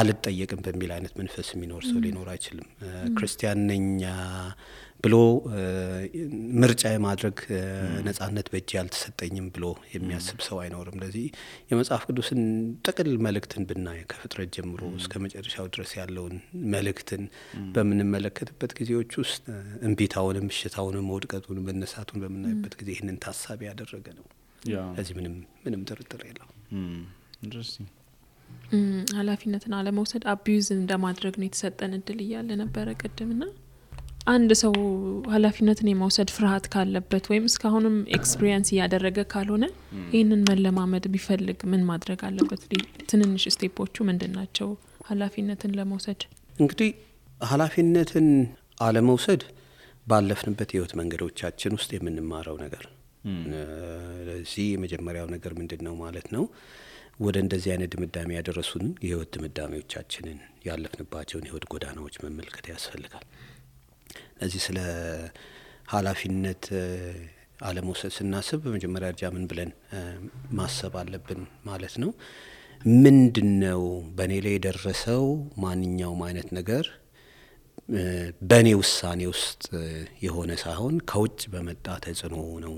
S2: አልጠየቅም በሚል አይነት መንፈስ የሚኖር ሰው ሊኖር አይችልም። ክርስቲያን ነኝ ብሎ ምርጫ የማድረግ ነጻነት በእጅ ያልተሰጠኝም ብሎ የሚያስብ ሰው አይኖርም። ለዚህ የመጽሐፍ ቅዱስን ጥቅል መልእክትን ብናይ ከፍጥረት ጀምሮ እስከ መጨረሻው ድረስ ያለውን መልእክትን በምንመለከትበት ጊዜዎች ውስጥ እንቢታውንም እሽታውንም መውድቀቱንም መነሳቱን በምናይበት ጊዜ ይህንን ታሳቢ ያደረገ ነው። ለዚህ ምንም ጥርጥር የለውም።
S4: ኢንትረስቲንግ
S3: ኃላፊነትን አለመውሰድ አቢዩዝ እንደማድረግ ነው የተሰጠን እድል እያለ ነበረ ቅድምና አንድ ሰው ኃላፊነትን የመውሰድ ፍርሃት ካለበት ወይም እስካሁንም ኤክስፒሪየንስ ያደረገ ካልሆነ ይሄንን መለማመድ ቢፈልግ ምን ማድረግ አለበት? ትንንሽ ስቴፖቹ ምንድናቸው ኃላፊነትን ለመውሰድ?
S2: እንግዲህ ኃላፊነትን አለመውሰድ ባለፍንበት ህይወት መንገዶቻችን ውስጥ የምንማረው ነገር ለዚህ የመጀመሪያው ነገር ምንድነው ማለት ነው? ወደ እንደዚህ አይነት ድምዳሜ ያደረሱን የህይወት ድምዳሜዎቻችንን ያለፍንባቸውን የህይወት ጎዳናዎች መመልከት ያስፈልጋል። ለዚህ ስለ ኃላፊነት አለመውሰድ ስናስብ በመጀመሪያ ደረጃ ምን ብለን ማሰብ አለብን ማለት ነው? ምንድነው በእኔ ላይ የደረሰው ማንኛውም አይነት ነገር በእኔ ውሳኔ ውስጥ የሆነ ሳይሆን ከውጭ በመጣ ተጽዕኖ ነው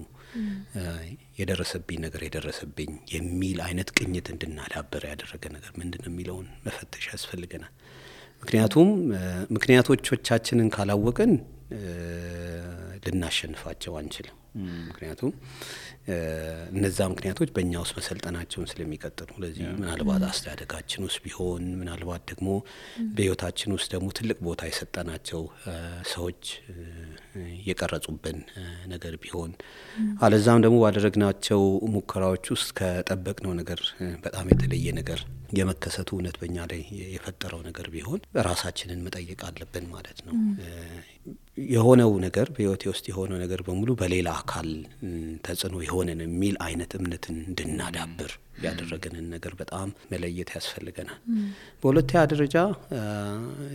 S2: የደረሰብኝ የሚል አይነት ቅኝት እንድናዳብር ያደረገ ነገር ምንድነው የሚለውን መፈተሽ ያስፈልገናል። ምክንያቱም ምክንያቶቻችንን ካላወቅን ልናሸንፋቸው አንችልም። ምክንያቱም እነዛ ምክንያቶች በእኛ ውስጥ መሰልጠናቸውን ስለሚቀጥሉ ለዚህ ምናልባት አስተዳደጋችን ውስጥ ቢሆን ምናልባት ደግሞ በህይወታችን ውስጥ ደግሞ ትልቅ ቦታ የሰጠናቸው ሰዎች የቀረጹብን ነገር ቢሆን አለዛም ደግሞ ባደረግናቸው ሙከራዎች ውስጥ ከጠበቅነው ነገር በጣም የተለየ ነገር የመከሰቱ እውነት በእኛ ላይ የፈጠረው ነገር ቢሆን ራሳችንን መጠየቅ አለብን ማለት ነው። የሆነው ነገር በህይወቴ ውስጥ የሆነው ነገር በሙሉ በሌላ አካል ተጽዕኖ የሆነን የሚል አይነት እምነትን እንድናዳብር ያደረገንን ነገር በጣም መለየት ያስፈልገናል። በሁለተኛ ደረጃ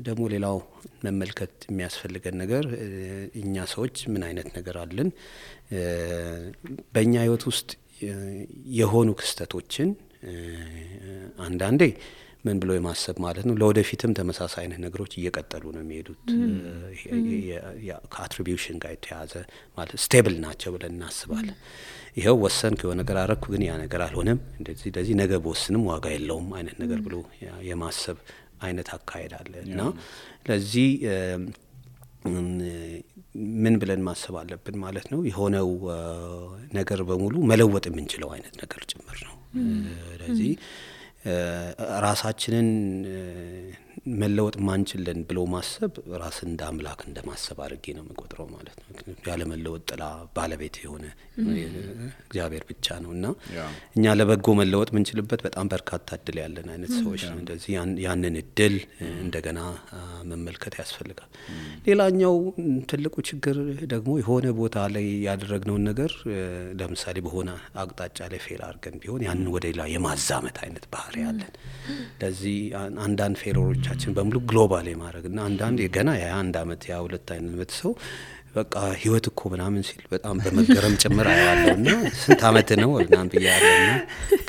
S2: ደግሞ ሌላው መመልከት የሚያስፈልገን ነገር እኛ ሰዎች ምን አይነት ነገር አለን? በእኛ ህይወት ውስጥ የሆኑ ክስተቶችን አንዳንዴ ምን ብሎ የማሰብ ማለት ነው ለወደፊትም ተመሳሳይ አይነት ነገሮች እየቀጠሉ ነው የሚሄዱት። ከአትሪቢዩሽን ጋር የተያዘ ማለት ስቴብል ናቸው ብለን እናስባለን። ይሄው ወሰንክ የሆነ ነገር አረኩ ግን ያ ነገር አልሆነም እንደዚህ ነገ በወስንም ዋጋ የለውም አይነት ነገር ብሎ የማሰብ አይነት አካሄድ አለ እና ለዚህ ምን ብለን ማሰብ አለብን ማለት ነው? የሆነው ነገር በሙሉ መለወጥ የምንችለው አይነት ነገር ጭምር ነው። ስለዚህ ራሳችንን መለወጥ ማንችልን ብሎ ማሰብ ራስን እንደ አምላክ እንደማሰብ አድርጌ ነው የምቆጥረው ማለት ነው። ያለ መለወጥ ጥላ ባለቤት የሆነ እግዚአብሔር ብቻ ነውና እኛ ለበጎ መለወጥ ምንችልበት በጣም በርካታ እድል ያለን አይነት ሰዎች ነው። እንደዚህ ያንን እድል እንደገና መመልከት ያስፈልጋል። ሌላኛው ትልቁ ችግር ደግሞ የሆነ ቦታ ላይ ያደረግነውን ነገር ለምሳሌ በሆነ አቅጣጫ ላይ ፌል አድርገን ቢሆን ያንን ወደ ሌላ የማዛመት አይነት ባህሪ ያለን። ለዚህ አንዳንድ ፌሎሮቻችን በሙሉ ግሎባል የማድረግና አንዳንድ የገና የ1 አመት የ2 አይነት ሰው በቃ ህይወት እኮ ምናምን ሲል በጣም በመገረም ጭምር አያለውና ስንት አመት ነው ምናምን ብያለውና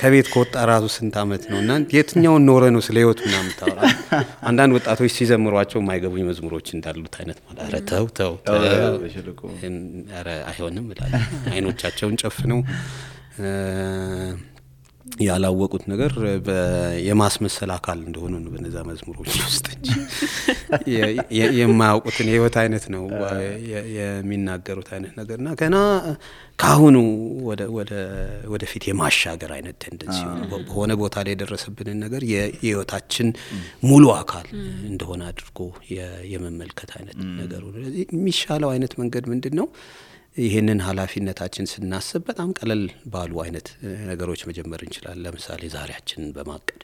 S2: ከቤት ከወጣ ራሱ ስንት አመት ነውና የትኛውን ኖረ ነው ስለ ህይወት ምናምን ታወራ። አንዳንድ ወጣቶች ሲዘምሯቸው የማይገቡኝ መዝሙሮች እንዳሉት አይነት ማለት ኧረ ተው ኧረ አይሆንም ይላል። አይኖቻቸውን ጨፍነው ያላወቁት ነገር የማስመሰል አካል እንደሆነ ነው በነዛ መዝሙሮች ውስጥ እንጂ የማያውቁትን የህይወት አይነት ነው የሚናገሩት አይነት ነገርና ገና ካሁኑ ወደ ፊት የማሻገር አይነት ቴንደንሲ በሆነ ቦታ ላይ የደረሰብንን ነገር የህይወታችን ሙሉ አካል እንደሆነ አድርጎ የመመልከት አይነት ነገር ነው። ስለዚህ የሚሻለው አይነት መንገድ ምንድነው? ይሄንን ኃላፊነታችን ስናስብ በጣም ቀለል ባሉ አይነት ነገሮች መጀመር እንችላለን። ለምሳሌ ዛሬያችንን በማቀድ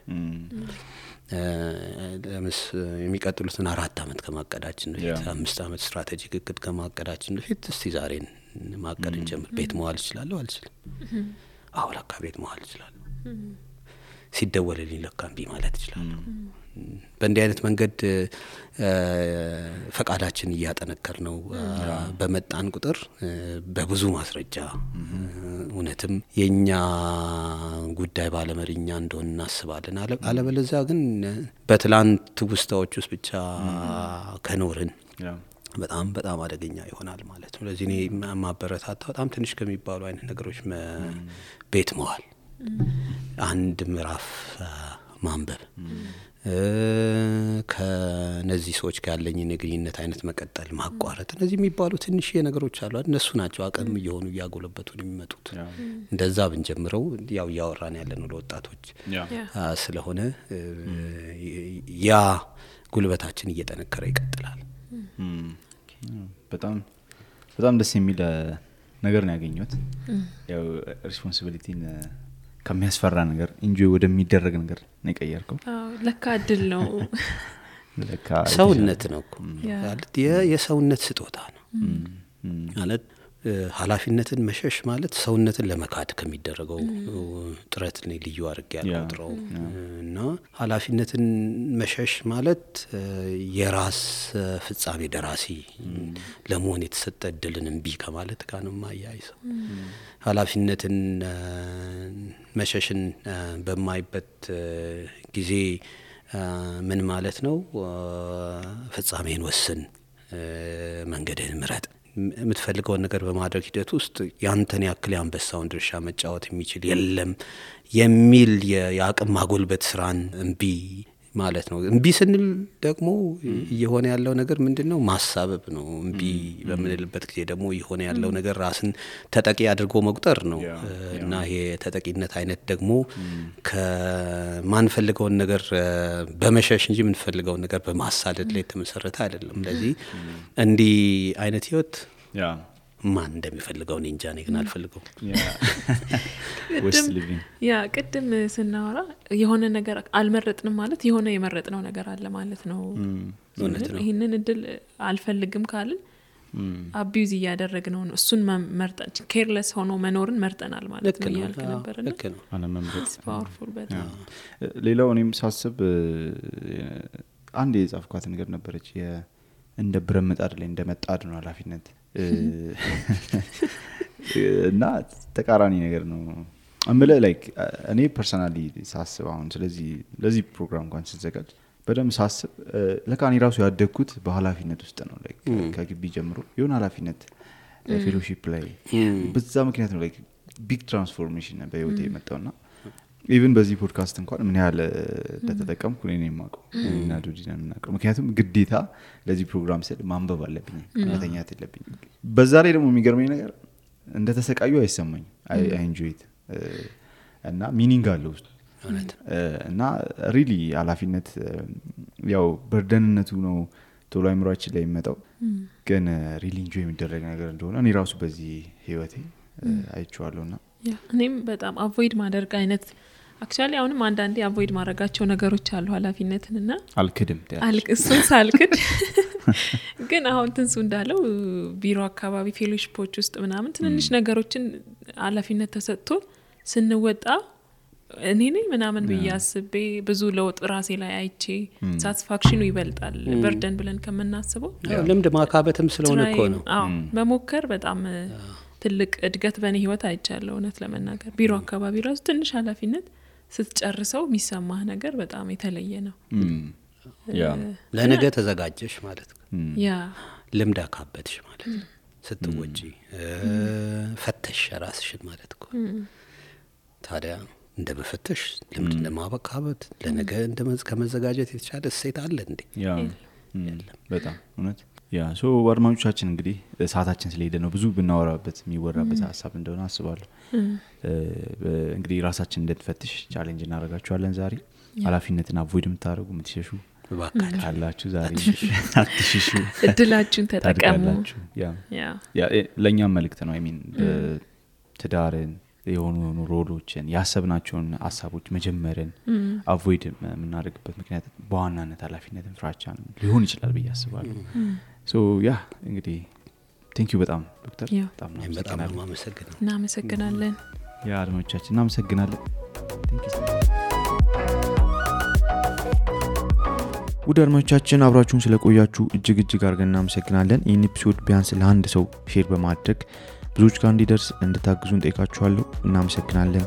S2: የሚቀጥሉትን 4 አመት ከማቀዳችን በፊት 5 አመት ስትራቴጂክ እቅድ ከማቀዳችን በፊት እስቲ ዛሬን ማቀድ እንጀምር። ቤት መዋል እችላለሁ አልችልም? አዎ ለካ ቤት መዋል እችላለሁ። ሲደወልልኝ ለካ እምቢ ማለት እችላለሁ። በእንዲህ አይነት መንገድ ፈቃዳችን እያጠነከር ነው በመጣን ቁጥር በብዙ ማስረጃ እውነትም የኛ ጉዳይ ባለመሪኛ እንደሆነ እናስባለን። አለበለዚያ ግን በትላንት ውስጣዎች ውስጥ ብቻ ከኖርን በጣም በጣም አደገኛ ይሆናል ማለት ነው። ለዚህ እኔ ማበረታታ በጣም ትንሽ ከሚባሉ አይነት ነገሮች ቤት መዋል፣ አንድ ምዕራፍ ማንበብ፣ ከነዚህ ሰዎች ጋር ያለኝን የግንኙነት አይነት መቀጠል፣ ማቋረጥ፣ እነዚህ የሚባሉ ትንሽ ነገሮች አሉ። እነሱ ናቸው አቅም እየሆኑ እያጎለበቱን የሚመጡት። እንደዛ ብንጀምረው ያው እያወራን ያለነው ለወጣቶች ስለሆነ ያ ጉልበታችን እየጠነከረ ይቀጥላል።
S4: በጣም በጣም ደስ የሚል ነገር ነው ያገኘሁት። ያው ሪስፖንሲቢሊቲን ከሚያስፈራ ነገር ኢንጆይ ወደሚደረግ ነገር ነው የቀየርከው።
S3: ለካ እድል ነው፣
S2: ለካ ሰውነት ነው ማለት የሰውነት ስጦታ ነው ማለት ኃላፊነትን መሸሽ ማለት ሰውነትን ለመካድ ከሚደረገው ጥረት ነው ልዩ አድርጌ ያልቆጥረው እና ኃላፊነትን መሸሽ ማለት የራስ ፍጻሜ ደራሲ ለመሆን የተሰጠ እድልን እምቢ ከማለት ጋር ነው ማያይዘው። ኃላፊነትን መሸሽን በማይበት ጊዜ ምን ማለት ነው? ፍጻሜን ወስን፣ መንገድህን ምረጥ። የምትፈልገውን ነገር በማድረግ ሂደት ውስጥ ያንተን ያክል ያንበሳውን ድርሻ መጫወት የሚችል የለም የሚል የአቅም ማጎልበት ስራን እምቢ ማለት ነው። እምቢ ስንል ደግሞ እየሆነ ያለው ነገር ምንድነው? ማሳበብ ነው። እምቢ በምንልበት ጊዜ ደግሞ እየሆነ ያለው ነገር ራስን ተጠቂ አድርጎ መቁጠር ነው እና ይሄ ተጠቂነት አይነት ደግሞ ከማንፈልገውን ነገር በመሸሽ እንጂ የምንፈልገውን ነገር በማሳደድ ላይ የተመሰረተ አይደለም። ስለዚህ እንዲህ አይነት ህይወት ማን እንደሚፈልገው እኔ እንጃ፣ እኔ ግን አልፈልገው።
S3: ቅድም ስናወራ የሆነ ነገር አልመረጥንም ማለት የሆነ የመረጥነው ነገር አለ ማለት ነው። ይሄንን እድል አልፈልግም ካልን አቢዩዝ እያደረግነው ነው። እሱን መርጠን ኬርለስ ሆኖ መኖርን መርጠናል ማለት ነው ያልክ ነበርና
S4: አለመምረጥ
S3: ፓወርፉል በጣም።
S4: ሌላው እኔም ሳስብ አንድ የጻፍኳት ነገር ነበረች፣ እንደ ብረት ምጣድ ላይ እንደመጣድ ነው ኃላፊነት እና ተቃራኒ ነገር ነው አምለ ላይክ እኔ ፐርሰናሊ ሳስብ አሁን ስለዚህ ለዚህ ፕሮግራም እንኳን ሲዘጋጅ በደም ሳስብ ለካኒ ራሱ ያደግኩት በኃላፊነት ውስጥ ነው። ላይክ ከግቢ ጀምሮ የሆነ ኃላፊነት ፌሎሺፕ ላይ በዛ ምክንያት ነው ላይክ ቢግ ትራንስፎርሜሽን በህይወቴ የመጣውና ኢቭን በዚህ ፖድካስት እንኳን ምን ያህል ተጠቀምኩ እኔ ነኝ የማውቀው እና ዱዲና እናቀው። ምክንያቱም ግዴታ ለዚህ ፕሮግራም ስል ማንበብ አለብኝ፣ መተኛት የለብኝ። በዛ ላይ ደግሞ የሚገርመኝ ነገር እንደተሰቃዩ አይሰማኝ። አይ ኢንጆይ ኢት እና ሚኒንግ አለው እና ሪሊ ኃላፊነት ያው በርደንነቱ ነው ቶሎ አይምሯችን ላይ የሚመጣው ግን ሪሊ ኢንጆይ የሚደረግ ነገር እንደሆነ እኔ ራሱ በዚህ ህይወቴ አይቼዋለሁና
S3: እኔም በጣም አቮይድ ማድረግ አይነት አክቹአሊ አሁንም አንዳንዴ አቮይድ ማድረጋቸው ነገሮች አሉ ኃላፊነትንና
S4: አልክድም
S3: እሱን ሳልክድ ግን አሁን ትንሱ እንዳለው ቢሮ አካባቢ ፌሎሺፖች ውስጥ ምናምን ትንንሽ ነገሮችን ኃላፊነት ተሰጥቶ ስንወጣ እኔ ነኝ ምናምን በያስቤ ብዙ ለውጥ ራሴ ላይ አይቼ ሳቲስፋክሽኑ ይበልጣል በርደን ብለን ከመናስበው
S2: ልምድ ማካበትም ስለሆነ እኮ ነው
S3: መሞከር በጣም ትልቅ እድገት በእኔ ህይወት አይቻለሁ እውነት ለመናገር ቢሮ አካባቢ ራሱ ትንሽ ኃላፊነት ስትጨርሰው የሚሰማህ ነገር በጣም የተለየ ነው
S2: ለነገ ተዘጋጀሽ ማለት ነው ልምድ አካበትሽ ማለት ነው ስትወጪ ፈተሽ ራስሽን ማለት ነው ታዲያ እንደ በፈተሽ ልምድ ለማበካበት ለነገ ከመዘጋጀት የተሻለ እሴት አለ እንዴ
S4: በጣም እውነት ሶ አድማጮቻችን እንግዲህ ሰዓታችን ስለሄደ ነው ብዙ ብናወራበት የሚወራበት ሀሳብ እንደሆነ አስባለሁ እንግዲህ ራሳችን እንድንፈትሽ ቻሌንጅ እናደርጋችኋለን ዛሬ ኃላፊነትን አቮይድ የምታደርጉ የምትሸሹ ካላችሁ ዛሬ አትሽሹ
S3: እድላችሁን ተጠቀሙ
S4: ለእኛም መልእክት ነው ሚን ትዳርን የሆኑ ሮሎችን ያሰብናቸውን ሀሳቦች መጀመርን አቮይድ የምናደርግበት ምክንያት በዋናነት ኃላፊነትን ፍራቻ ሊሆን ይችላል ብዬ አስባለሁ ሶ እንግዲህ ቴንኪዩ በጣም ዶክተር
S2: በጣም እናመሰግናለን
S3: እናመሰግናለን
S4: አድማጮቻችን እናመሰግናለን
S1: ውድ አድማጮቻችን አብራችሁን ስለቆያችሁ እጅግ አድርገን እናመሰግናለን ይህን ኤፒሶድ ቢያንስ ለአንድ ሰው ሼር በማድረግ ብዙዎች ጋር እንዲደርስ እንድታግዙን ጠይቃችኋለሁ እናመሰግናለን